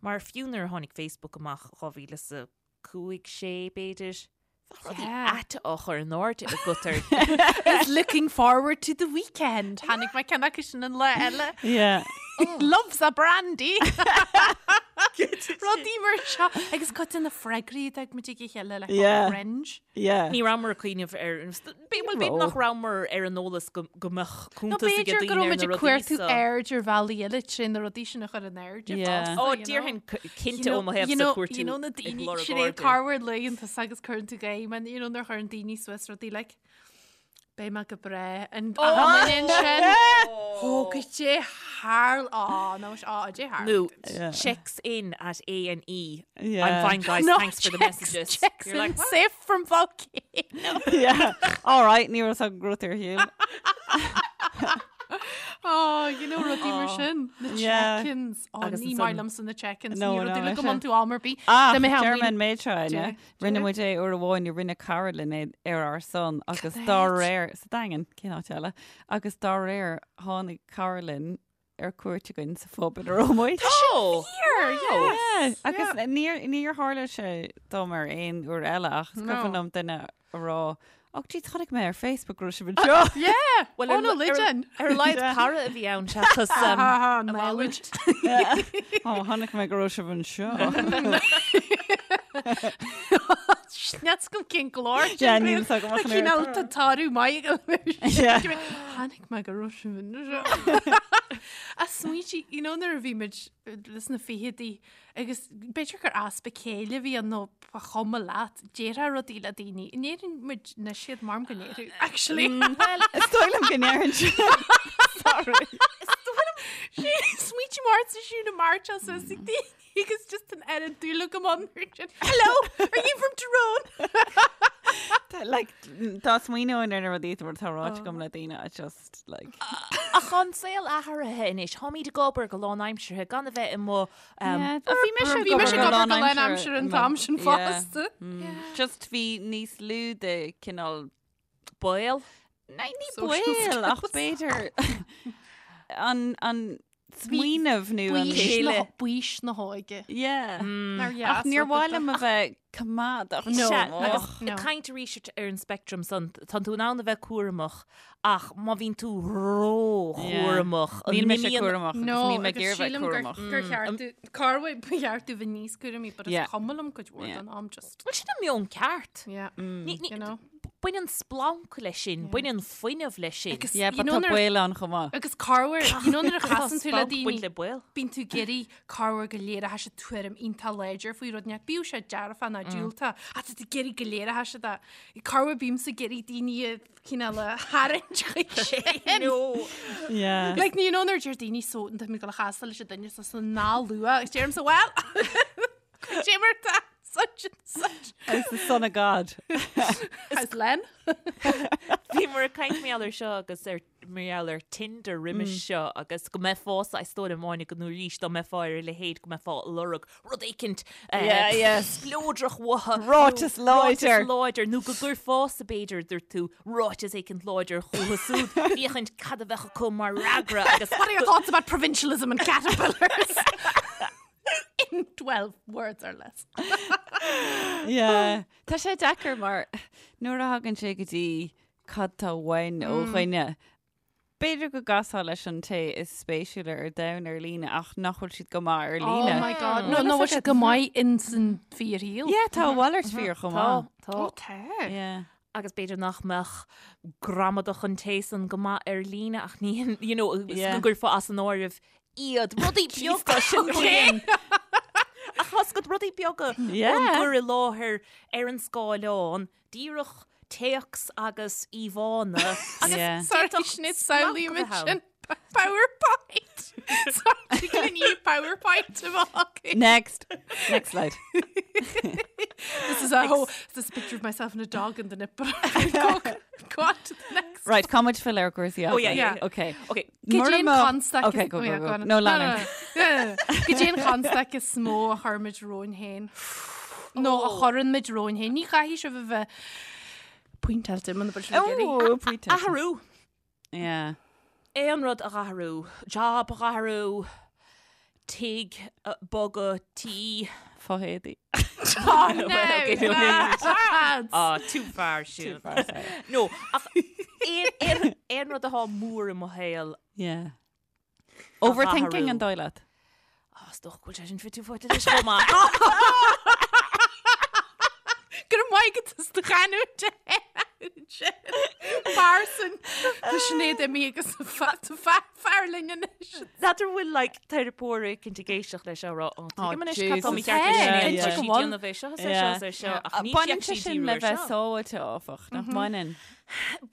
Mar fiú nuair a tháinig Facebook amach 2005, 6 b'fhéidir, Bheadh rudaí Yeah. aite á chur in airde agat ar Is looking forward to the weekend. Tháinig mé ceann acu sin an lá eile. Yeah. Loves a brandy. Rudaí mar seo. Agus cuid de na freagraí a d'fhág muid ag a chéile le Yeah. cringe. Yeah. Ní rabhamar ag cuimhneamh ar bhuel b'fhéidir nach rabhamar ar an eolas go go mbeadh Nó cuntas ag b'fhéidir go daoine raibh ar muid na ag rudaí cuartú so. aird ar bhealaí eile trí na rudaí sin a chur in airde Yeah. fosta, Ó you know. déarfainn cinnte ó mo thaobh You sa know, cuartú you know na ag daoine lorg sin é airde. carwar laethanta agus cuireann tú gaim and you know nuair a chuireann daoine suas rudaí like Beidh mé go breá an sin Ó goidé tharla á nó á dé thar. Nó Yeah. checks in at A and E. Yeah. I'm fine guys, No, thanks for the checks- messages. Checks You're in like, what? safe from volcano. Yeah. All right, ní raibh an grút ar shiúl. Oh, you know rudaí mar sin. Na Yeah. check-ins. Oh, Agus ní ansan- maith liomsa na check-ins. No, Ní no, rudaí le go mise. mbun tú am ar bith. Ah, Tá mé German hamlín. méid seo Dé, ne. Rinne dé. muid é uair amháin rinne cara linn é ar ár son agus dá réir sa Daingean cén áit eile agus dá réir tháinig cara linn ar cuairt againn sa phub ina raibh muid. Oh! Here, yes. Yeah, agus níor níor tharla sé dom ar aon uair eile ach is No. cuimhin liom duine a rá Ach gee chonaic mé ar Facebook go raibh sibh anseo. Yeah. Well, oh, ar no, ar- legend. Ar a laghad cara a bhí ann seachas um, Ah, a knowledge. mhalairt. Ó chonaic mé go raibh sibh anseo. Sneats go cén glór. Yeah, níl fhios agam ach an Cín oiread. tá tarú maith Yeah. Tháinig mé go raibh sibh anseo. A smaointe, you know, nuair a bhí muid leis na fichidí agus b'fhéidir gur easpa céille a bhí ann nó ba chuma leat, déarfá rudaí le daoine. An ndéarann muid anois iad mar go ndéarfadh, actually. Well, Is dóigh liom go ndéarann siad. Sorry. Smaointe mar sa siú na March as ag daoine agus just an oiread dúil agam ann. Hello, are you from Tyrone? Like, dá smaoineoinn ar na rudaí atá ráite agam le daoine, I just, like... Ach tá an saol athraithe anois, táimid ag obair go lánaimseartha gan a bheith i mo... Yeah, bhí mise ag Bhí mise ag obair go lánaimseartha an t-am sin fosta. Just bhí níos lú de cineál baol. Ní ní Social baol ach b'fhéidir an an smaoineamh nó an Baois chéile. na- Baois na hóige. Yeah. Nár dheas Ach níor rud mhaith é. liom a bheith coimeádach. No. Sea, Och. agus No. ag caint arís ar an spectrum san, tá tú in ann a bheith cúramach ach má bhíonn tú ró-chúramach, an Níl mise n-imíonn- cúramach agus No, níl mé ag agus iarraidh bheith sílim gur cúramach. gur cheart tú corruair ba cheart tú bheith níos cúramaí, but is Yeah. cuma liom cuid mhór Yeah. den am just. Bhuel, sin an meon ceart. Yeah. Ní- ní- You know. Baineann splanc leis sin, baineann fuinneamh leis sin. Agus Yeah, you but know tá nuair- baol ann chomh maith. Agus corruair, you know nuair a chasann tú le Splanc baint daoine, le baol. bíonn tú ag iarraidh corruair go léireoidh siad tuairim iontach láidir faoi rud inteacht, bíodh sé dearfach nó diúltach, ach tá tú ag iarraidh go léireoidh siad é. Corruair bímse ag iarraidh daoine a chineál a tharraingt chuig sin. No. Yeah. Like, you know nuair a deir daoine so, tá mé ag dul a chastáil leis an duine so so ná luath, agus deirimse, well, cad é mar tá such and such. As the son of God. As Len. Bhíomar ag caint mar gheall ar seo agus ar mar gheall ar Tinder roimis seo agus go mbeifeása is dóigh liom Áine go nó arís dá mbeifeá ar a leithéid go mbeifeá ag lorg rud éicint Yeah, yeah. spleodrach uathu. Ráiteas nó láidir. Ráiteas láidir nó go gcuirfeása b'fhéidir dúirt tú ráiteas éicint láidir chucu súd féachaint cad a bheadh acu mar fhreagra agus What are your thoughts about provincialism and caterpillars? In 12 words or less. Yeah. Tá sé deacair mar nuair a thagann sé go dtí cad tá uainn ó dhuine. B'fhéidir go gcasfá leis an té is spéisiúla ar domhan ar líne ach nach bhfuil siad go maith ar líne. Oh my god. No, no, bhfuil siad go maith in san fíorshaol. Yeah, tá a mhalairt fíor chomh maith. Tá, Ó, tá. Yeah. Agus b'fhéidir nach mbeadh gramadach an té san go maith ar líne ach ní, you know, Yeah. go gcuirfeá as an áireamh iad rudaí beaga sin cén. Ach tá siad rudaí beaga Yeah. an gcur i láthair ar an scáileán, díreach téacs agus íomhánna agus Yeah. Sorry, d'fhéadfadh Sinéad, splanc a samhlaím bheith ann. ansin PowerPoint. Sorry, can you PowerPoint a bheith acu? Next. Next slide. This is a whole, this is a picture of myself and a dog in the nipple. Go, go on to the next. Right, cá muid filleadh ar chúrsaí Oh, yeah, yeah. Okay. Okay. Cad é an Mura mbeadh- constaic Okay, is- go, oh, go, yeah, go. go on. No, lean. no, no, no. Cad é an chonstaic is mó a chuirimid romhainn féin. Nó a chuireann muid romhainn féin. Ní chaithfidh sibh a bheith pointeáilte muna bhfuil sibh ag iarraidh. Oh, pointe. Athrú. Yeah. Aon rud a dh'athrú. Job a dh'athrú. Tigh, bogadh, tí. Fo-éadaí. Oh, no, okay, no, lads. Ah, too far, Siún. No, ach aon- aon aon rud atá mór i mo shaol. Yeah. Overthinking athrú. an dóigh leat. Ah, is dócha go bhfuil sé sin fite fuaite leis chomh maith. Go raibh maith agat as do chanúint sin. Parson. Tá Sinéad imithe agus tá fear linn anois. N'fheadar bhfuil like teiripeoir éicint ag éisteacht leis á rá, "Ó, tuigim anois cad tá Jesus. mícheart leis Hey, Sinéad, cinnte tá go sí bhfuil. déanamh é seo, is é seo, is é seo, ach ní Baineann bheadh sé sí sin díriú le ar bheith seo. sábháilte áfach, nach mbaineann?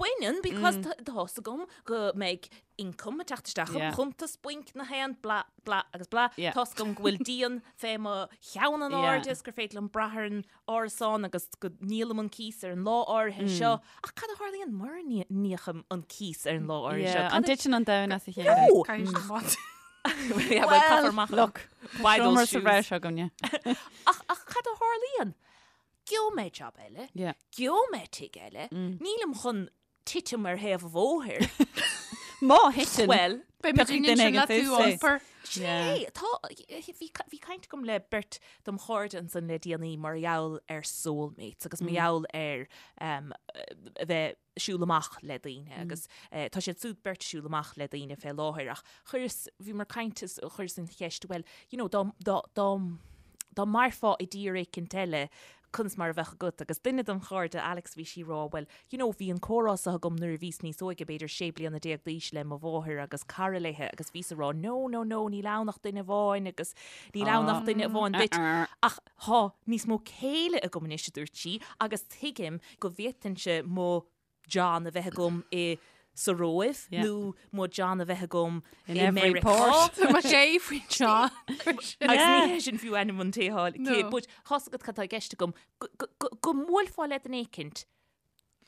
Baineann, because tá fhios agam go mbeidh income ag teacht isteach im Yeah. chuntas bainc na haon blah blah agus blah. Yeah. Tá fhios agam go bhfuil díon fé mo cheann in Yeah. airde is gur féidir liom brath ar an árasán agus go ndíolaim an cíos ar an lá áirithe seo. Ach cad a tharlaíonn mura n-íocaim an cíos ar an lá áirithe seo? Yeah, Cad An a- dtiteann an domhan as a chéile? No! Caithfidh siad amach. Yeah, well, caithfear amach. Look, Buy those seomra sa shoes. bhreis againne. Ach, ach cad a tharlaíonn? Gheobhaidh mé job eile, Yeah. gheobhaidh mé tigh eile, nílim chun titim ar thaobh an bhóthair. Má thiteann. Well, Beidh muid Piocfaidh in duine sin le éigin tú suas é. iompar. Sin Yeah. é, tá, bhí, bhí caint agam le beirt dom chairde ansan le déanaí mar gheall ar soulmates agus mar gheall ar um, a bheith siúl amach le daoine agus eh, tá siad súd beirt siúl amach le daoine fé láthair ach chuireas, bhíomar ag caint is chuireas an cheist, well, you know, dá, dá, dá, dá mairfeá i dtír éicint eile, conas mar a bheadh agat? Agus duine dom chairde, Alex, bhí sí ag rá, bhuel, you know, bhí an comhrá seo agam nuair a bhíos níos óige, b'fhéidir 16 bliana d'aois le mo mháthair agus cara léithe agus bhíos ag rá, no, no, no, níl ann ach duine amháin agus níl ann ach duine amháin duit. Ach tá níos mó céille agam anois, a dúirt sí, agus tuigim go bhféadfainnse mo John a bheith agam i. sa Róimh nó mo John a bheith agam i Meiriceá. Tá mé sé faoin John. Agus ní hé sin fiú ainm an té thall. But tá 's agat cad tá i gceist agam, go mbuailfeá le duine éicint,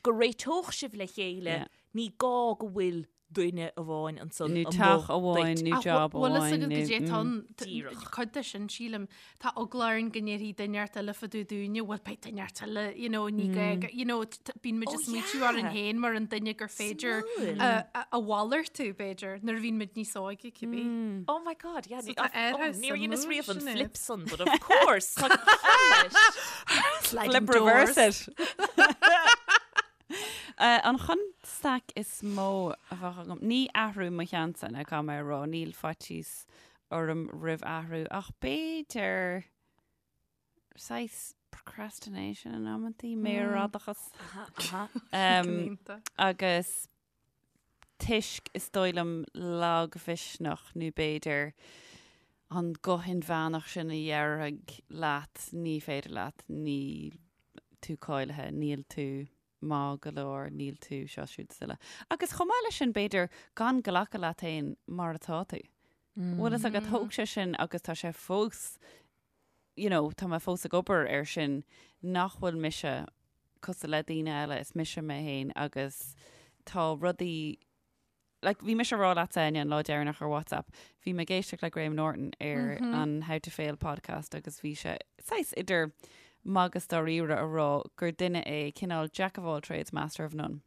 go réiteodh sibh le chéile, ní gá go bhfuil duine amháin ansan Nó teach amháin nó job Bhfuil fhios amháin agat nó goidé tá ann? Díreach. Cuid de sin, sílim, tá eagla orainn go ndéarfaidh duine inteacht eile fá dtaobh dúinne, bhuel beidh duine inteacht eile, you know, ní gá go, you know, bíonn muid Oh, ag smaoitiú yeah. orainn féin mar an duine gur féidir Suimiúil. a- a a mhalartú, b'fhéidir, nuair a bhíonn muid níos óige, cibé. Oh my God, yeah. So tá oh, airthe níor dheineas suimiúil riamh an sin é. flip san, but of course, tá ciall leis. Sliding Flip reverse doors. it. An chonstaic is mó a bheadh agam, ní athrú mo cheannsa, ná caithfidh mé a rá, níl faitíos orm roimh athrú, ach b'fhéidir saghas procrastination in amantaí, méarfhadachas. Agus toisc, is dóigh liom, lagmhisneach nó b'fhéidir an guth inmheánach sin a dhéarfaidh leat ní féidir leat, níl tú cáilithe, níl tú maith go leor, níl tú seo, siúd is uile. Agus chomh maith leis sin, b'fhéidir gan glacadh leat féin mar atá tú. Bhfuil fhios agat, thóg sé sin agus tá sé fós, you know, tá mé fós ag obair air sin, nach bhfuil mise cosúil le daoine eile, is mise mé féin agus tá rudaí, like, bhí mise ag rá leatsa, Áine, an lá deireanach ar WhatsApp, bhí mé ag éisteacht le Graham Norton ar an How to Fail podcast agus bhí sé saghas idir magadh is dáiríre a rá gur duine é cineál jack of all trades, master of none.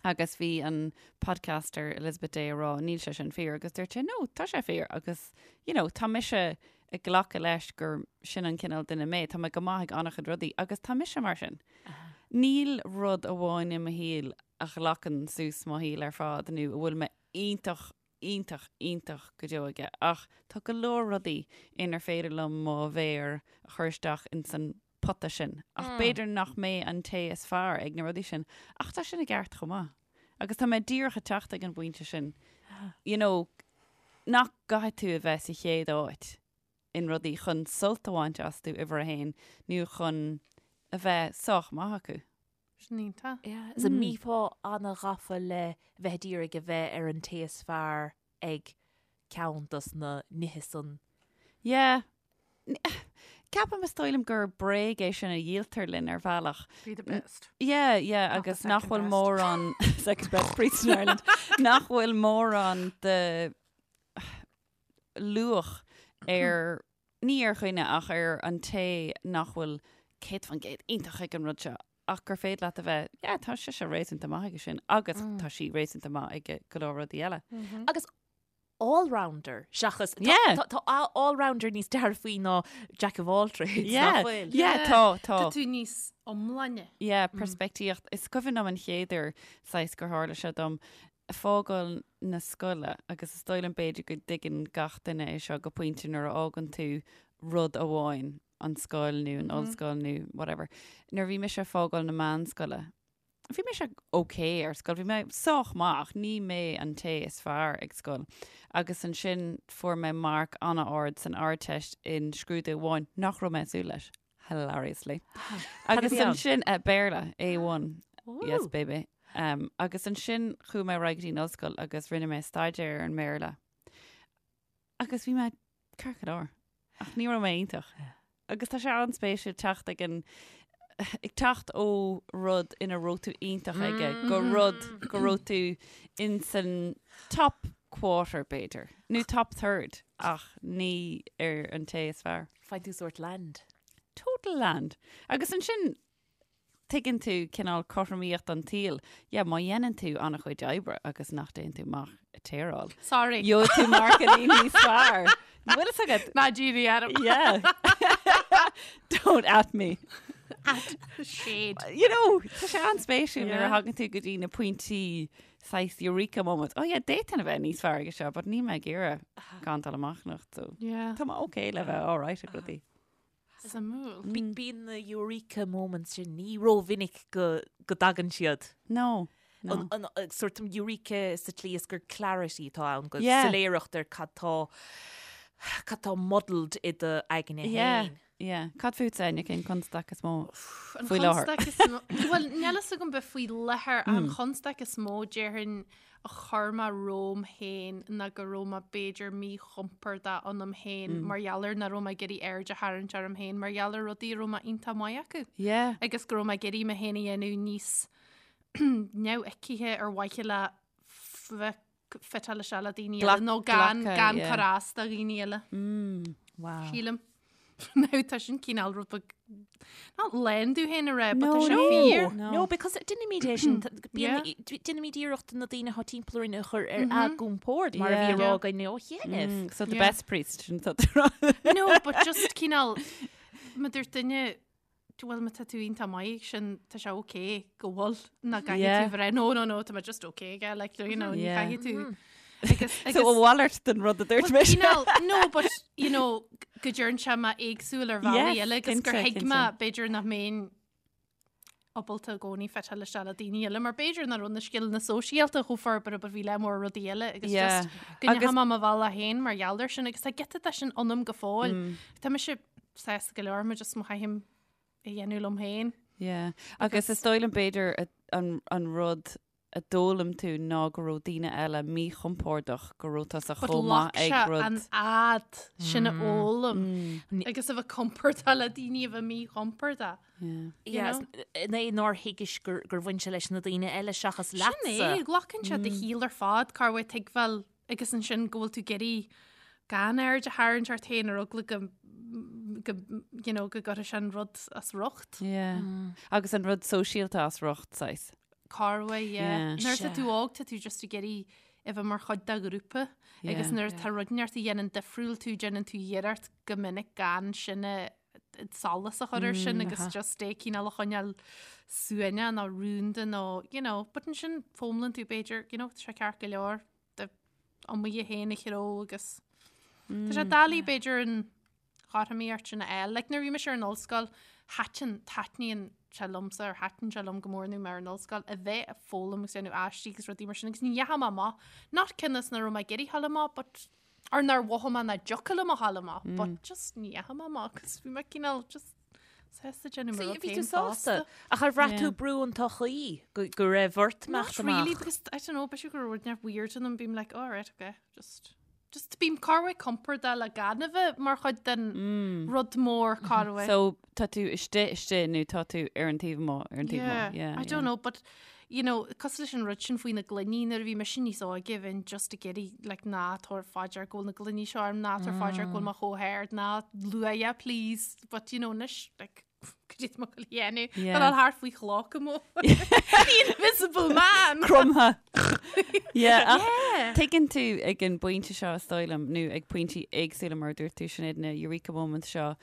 Agus bhí an podcaster Elizabeth Day a rá níl sé sin fíor agus dúirt sé no, tá sé fíor agus you know, tá mise ag glacadh leis gur sin an cineál duine mé, tá mé go maith ag an-chuid rudaí agus tá mise mar sin. Níl rud amháin i mo shaol a ghlacann suas mo shaol ar fad nó a bhfuil mé iontach, iontach, iontach go deo aige ach tá go leor rudaí inar féidir liom mo mhéar a chur isteach ins an pota sin ach b'fhéidir nach mé an té is fearr ag na rudaí sin ach tá sin i gceart chomh maith. Agus tá mé díreach ag teacht ag an bpointe sin, you know, nach gcaithfidh tú a bheith sa chéad áit in rudaí chun sult a bhaint astu uimhir a haon nó chun a bheith sách maith acu. Sin iontach. Yeah, is an mbífeá an-ghafa le bheith ag iarraidh a bheith ar an té is fearr ag ceann dos na nithe san. Yeah. Ceapaim is dóigh liom gur bréag é sin a dhíoltar linn ar bhealach. Be the best. Yeah, yeah, Not the agus nach second bhfuil best. mórán second best priest in Ireland, nach bhfuil mórán de luach ar ní ar dhuine ach ar an té nach bhfuil 100% iontach ag an rud seo ach gur féidir leat a bheith, yeah, tá sise réasúnta maith aige sin agus tá sí réasúnta maith ag go leor rudaí eile. Agus all-rounder seachas tá- Yeah. tá tá all-rounder níos dearfaí ná jack of all trades, Yeah, nach bhfuil? yeah, tá, tá. Tá tú níos iomláine. Yeah, peirspictíocht. Is cuimhin liom an chéad uair saghas gur tharla sé dom fágáil na scoile agus is dóigh liom b'fhéidir go dtuigeann gach duine é seo go pointe nuair a fhágann tú rud amháin, an scoil nó an ollscoil nó whatever. Nuair a bhí mise ag fágáil na meánscoile, bhí mise ok ar scoil, bhí mé sách maith ach ní mé an té is fearr ag scoil. Agus ansin fuair mé marc an-ard san Ardteist in scrúdú amháin nach raibh mé ag súil leis. Hilariously. Agus bhí ann? ansin, eh, Béarla, A1. Yes, baby. Um, agus ansin chuaigh mé ar aghaidh go dtí an ollscoil agus rinne mé staidéar ar an mBéarla. Agus bhí mé ceart go leor. Ach ní raibh mé iontach. Agus tá sé an-spéisiúil teacht ag an ag teacht ó rud ina raibh tú iontach aige go rud go raibh tú in san top quarter b'fhéidir, nó top third ach ní ar an té is fearr. Faigheann tú sórt land. Total land. Agus ansin tuigeann tú cineál cothromaíocht an tsaoil. Yeah, má dhéanann tú an-chuid oibre agus nach dtéann tú amach ag téaráil. Sorry. Gheobhaidh tú marcannaí níos fearr. Bhfuil fhios agat? Ná dírí orm. Yeah. Don't at me. At shade. You know, tá sé an-spéisiúil nuair a Yeah. thagann tú go dtí na pointí saghas eureka moments. Oh yeah, d'fhéadfainn a bheith níos fearr aige seo, but níl mé ag iarraidh gan dul amach anocht, so Yeah. tá mé okay le bheith all right ag rudaí. Suimiúil. Bíonn na eureka moments sin ní rómhinic go go dtagann siad. No, no. An an sórt eureka sa tslí is gur clarity atá ann, go Yeah. soiléireacht ar cad tá Cad tá muddled i do aigne Yeah, féin? yeah. Cad fútsa, Áine, cén constaic is mó An faoi láthair? chonstaic is mó, bhuel, níl fhios agam bith faoi láthair, an chonstaic is mó, déarfainn, a chuir mé romham féin ná go raibh mé b'fhéidir míchompordach ionam féin mar gheall ar nach raibh mé ag iarraidh aird a tharraingt orm féin mar gheall ar rudaí a raibh mé iontach maith acu. Yeah. Agus go raibh mé ag iarraidh mé féin a dhéanamh níos neamhfheicthe ar mhaithe le bheith fiteáil isteach le daoine eile nó gan gan cur as do dhaoine eile. Wow. Sílim. Now tá sin cineál rud beag not lén tú féin a rá, but tá sé fíor. No. No, because déanaimid é sin, déanaimid iarracht na daoine atá timpeall orainn a chur ar a gcompord mar a bhí á rá againn ó chianaibh. So the Yeah. best priest sin tá tú rá. No, but just cineál má dúirt duine bhuel má tá tú iontach maith ag sin tá sé ok go bhfuil ná caithfidh Yeah. tú bheith no no no tá mé just ok aige like you know ní Yeah. caithfidh tú agus So a mhalairt den rud a dúirt Well, mise. cineál, no but you know go deireann sé mé éagsúil ar bhealaí Yes, eile agus gur cinnte, thuig mé cinnte. b'fhéidir nach mbeinn ábalta i gcónaí fiteáil isteach le daoine eile mar b'fhéidir nach raibh na scileanna sóisialta chomh forbartha but bhí le mór rudaí eile agus Yeah. just go Agus- ndeachaigh mé mo bhealach féin mar gheall air sin agus tá giota de sin ionam go fóill. Tá mise sásta go leor mar just má chaithim a dhéanamh liom féin. Yeah. Agus is dóigh liom b'fhéidir a- an, an rud a d'fhoghlaim tú ná go raibh daoine eile míchompordach go raibh tusa But chomh maith ghlac ag sé rud. an fhad sin a fhoghlaim agus a bheith compordach le daoine a bheith míchompordach. Yeah. Yeah, know? is- é nár thuigis gur gur bhain sé leis na daoine eile seachas Sin é, leatsa. glacann sé do shaol ar fad, cá bhfuil tuigbheáil agus ansin go bhfuil tú ag iarraidh gan aird a tharraingt ort féin ar eagla go go you know, go gcuirfidh sé an rud as riocht. Yeah. Agus an rud sóisialta as riocht saghas. Corway, yeah. Yeah. Nuair atá Sea. tú óg tá tú just ag iarraidh a bheith mar chuid de ghrúpa agus Yeah. nuair atá rud inteacht a dhéanann difriúil tú déanann tú iarracht go minic gan sin a solas a chur air sin agus just é cineál a choinneáil suaimhneach nó rúnda nó you know, but ansin foghlaimíonn tú b'fhéidir you know, tá sé ceart go leor do iomaí féin a chró agus Tá sé doiligh b'fhéidir an chothromaíocht sin a fháil. Like nuair a bhí mise ar an ollscoil, thaitin, taitníonn sé liomsa or thaitin sé liom go mór nuair mé ar an ollscoil a bheith ag foghlaim agus déanamh aistí agus rudaí mar sin agus ní dheachaigh mé amach. Not cionn is nach raibh mé ag iarraidh dhul amach but or nár mhothaigh mé nach dtiocfadh liom a dhul amach but just ní dheachaigh mé amach agus bhí mé cineál just sásta déanamh mo rud Bhí tú féin sásta. fosta. Ach ar bhraith tú Yeah. brú an tsochaí go go raibh ort Not imeacht really amach? because I don't know, b'fhéidir go raibh rud inteacht weird ionam bím like all right okay just just bím corruair compordach le gan a bheith mar chuid den rud mór corruair. So tá tú istigh istigh nó tá tú ar an taobh amuigh ar an taobh Yeah, amuigh. Yeah, I don't know, but you know, cosúil leis an rud sin faoi na gloiní nuair a bhí mise níos óige bheinn just ag iarraidh like ná tabhair faoi deara go bhfuil na gloiní seo orm, ná tabhair faoi deara go bhfuil mé chomh hard, ná luaigh please, but you know, anois like cad é atá mé ag goil a dhéanamh? Yeah. Tá thart faoi chloch amuigh. The invisible man! Cromtha. Yeah, ach Yeah. Tuigeann tú ag an bpointe seo is dóigh liom nó ag pointí éagsúla mar a dúirt tú Sinéad na Eureka moments seo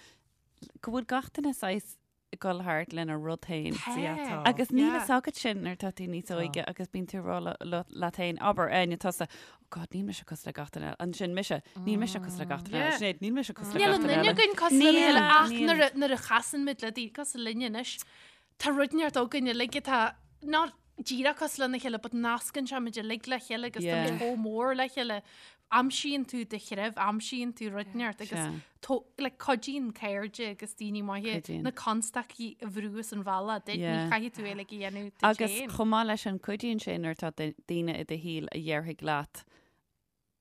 go bhfuil gach duine saghas ag dul thart lena rud féin. Tá. Agus níl Yeah. fhios agat sin nuair atá tú níos óige agus bíonn tú ag rá le- le- leat féin abair Áine tusa oh God níl mise cosúil le gach duine eile. Ansin mise níl mise cosúil le gach duine eile. Yeah. Sinéad níl mise cosúil le Níl gach an duine duine eile. againn cosúil lena Níl, chéile ach níl. nuair a- nuair a chasann muid le daoine cosúil linne anois, tá rud inteacht againn uilig atá not díreach cosúil lena chéile, but nascann sé muid uilig le chéile agus tá Yeah. muid chomh mór le chéile. Aimsíonn tú do threibh, aimsíonn tú rud inteacht agus Sea. tó- like, cuidíonn cairde agus daoine maithe Cuidíonn. na constaicí a bhrú as an bhealach duit, ní Yeah. chaithfidh tú é uilig a dhéanamh duit Agus féin. chomh maith leis an cuidíonn sé nuair atá daoine i do shaol a dhéarfaidh leat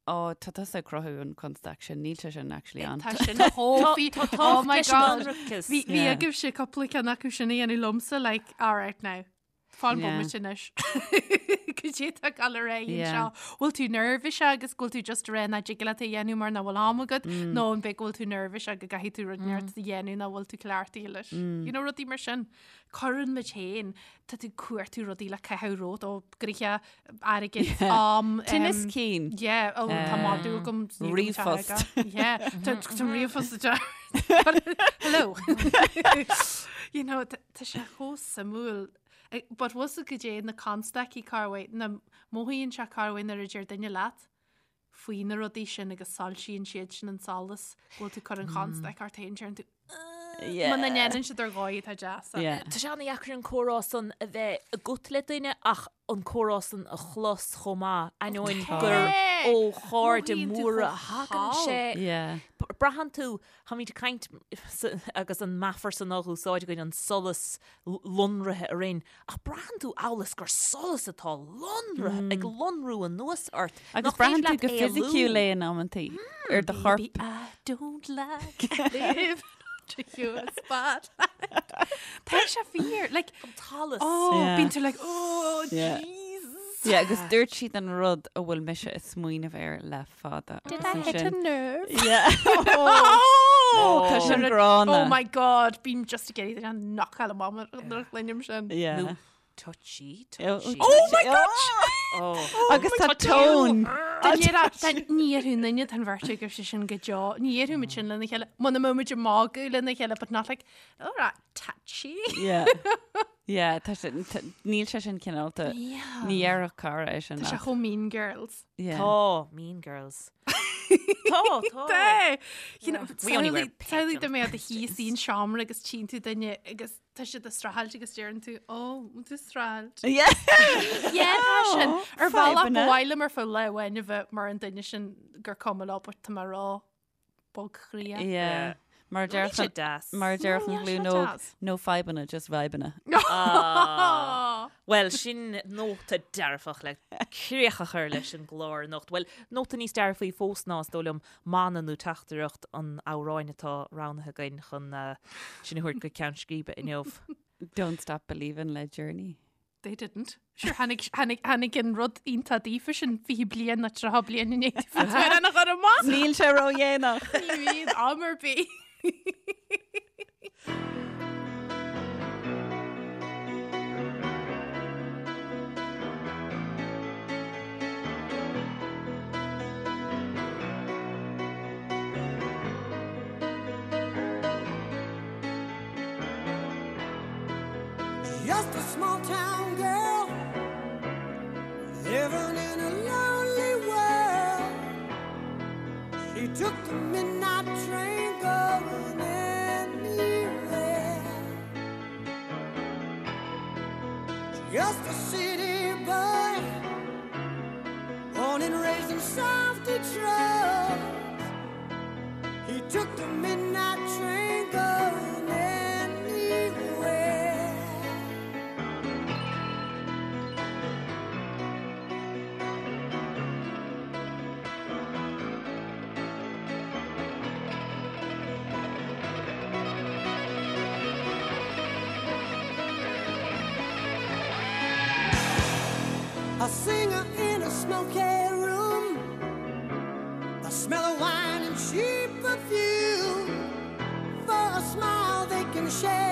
Ó, tá tusa ag cruthú an constaic sin, níl sé sin actually ann. Tá sin chomh fí- Oh my God. Bhí Bhí bhí Yeah. agaibhse cúpla ceann acu sin a dhéanamh liomsa, like, all right now. Fan Yeah. bomaite anois. Cad é atá ag dul ar aghaidh Yeah. anseo. Bhfuil tú nervous agus go bhfuil tú just ag rá nach dtig leat é a dhéanamh mar nach bhfuil am agat, nó an b'é go bhfuil tú nervous go gcaithfidh tú rud inteacht a dhéanamh nach bhfuil tú cleachtaithe leis. You know, rudaí mar sin. Cuireann muid féin, tá tú ag cuartú rudaí le caitheamh romhat ó gnoithe, airgead, am. Tinneas cinn. Yeah, oh, tá madadh agam. ní agam sé ríomhphost. aige. Yeah, tá tá ríomhphost a Hello. You know, tá tá sé chomh suimiúil. Eh, But was go dé na constaicí corruair, na mothaíonn sé corruair nuair a deir duine leat faoi na rudaí sin agus soilsíonn siad sin an solas, go bhfuil tú ag cur an chonstaic ort féin, deireann tú. Muna ndéanann siad ar dhóigh atá deas. Tá sé an-dheacair an comhrá san a bheith agat le duine ach an comhrá san a chlos chomh maith, ainneoin gur ó chairde móra a thagann sé. Braitheann tú, táimid ag caint agus an meafar san á úsáid againn, an solas lonraithe orainn, ach braitheann tú amhail is gur solas atá lonraithe, ag lonrú anuas ort. Agus braitheann tú go fisiciúil é in amantaí ar do chorp. Baby, I don't like living under your spotlight. Tá sé fíor, like, An t-allas. oh, Yeah. bíonn tú like, oh, Yeah. Jesus. Yeah, agus dúirt siad an rud a bhfuil mise ag smaoineamh air le fada. Did I hit a nerve? Yeah. Oh, Tá sin gránna. Oh my God, bím just ag iarraidh an knockáil amach nuair a chluinim sin. Yeah. Nó touchy, Oh, touchy. oh my God! Oh. Agus tá tone. Ní dhéarfaidh duine den bheirt agaibh sé sin go deo. Ní dhéarfaidh muid sin lena chéile. Muna mbeadh muid ag magadh lena chéile, but not like, all right, touchy. Yeah. Yeah, tá sé, níl sé sin cineálta. Yeah. Ní dhéarfadh cara é sin. Tá sé chomh Mean Girls. Yeah. Tá, Mean Girls. Tá, tá. Tá! You know, We only wear pink Samhlaigh on dá mbeifeá i do shuí san seomra agus tchíonn tú duine agus tá siad ag streachailt agus deireann tú, ó, bhfuil tú ag streachailt? Yeah. Yeah, tá sin. Ar bhealach Fadhbanna. ba mhaith liom ar feadh lá amháin a bheith mar an duine sin gur cuma leo, but tá mé ró-bhogchroíoch. Yeah. Mar a Níl sé déarfadh deas. mar a déarfadh an Níl sé ghlúin óg, deas. no fadhbanna, just vibeanna. Ah. Bhuel, sin nóta dearfach le críoch a chur leis an gclár anocht. Bhuel, nóta níos dearfaí fós ná, is dóigh liom, mana nó teachtaireacht an amhráin atá roghnaithe againn chun sinn a thabhairt go ceann scríbe inniu. Don't Stop Believin' le Journey. They didn't. Sure, tháinig, tháinig, tháinig an rud iontach daofa sin 20 bliain nó 30 bliain i ndiaidh daofa an a chur amach. Níl sé ródhéanach. Ní bhíonn am ar bith. Just a small town girl living in a lonely world. She took the midnight train going anywhere. Just a city boy, born and raised in South Detroit. He took the midnight train going anywhere. A singer in a smoky room, the smell of wine and cheap perfume. For a smile they can share.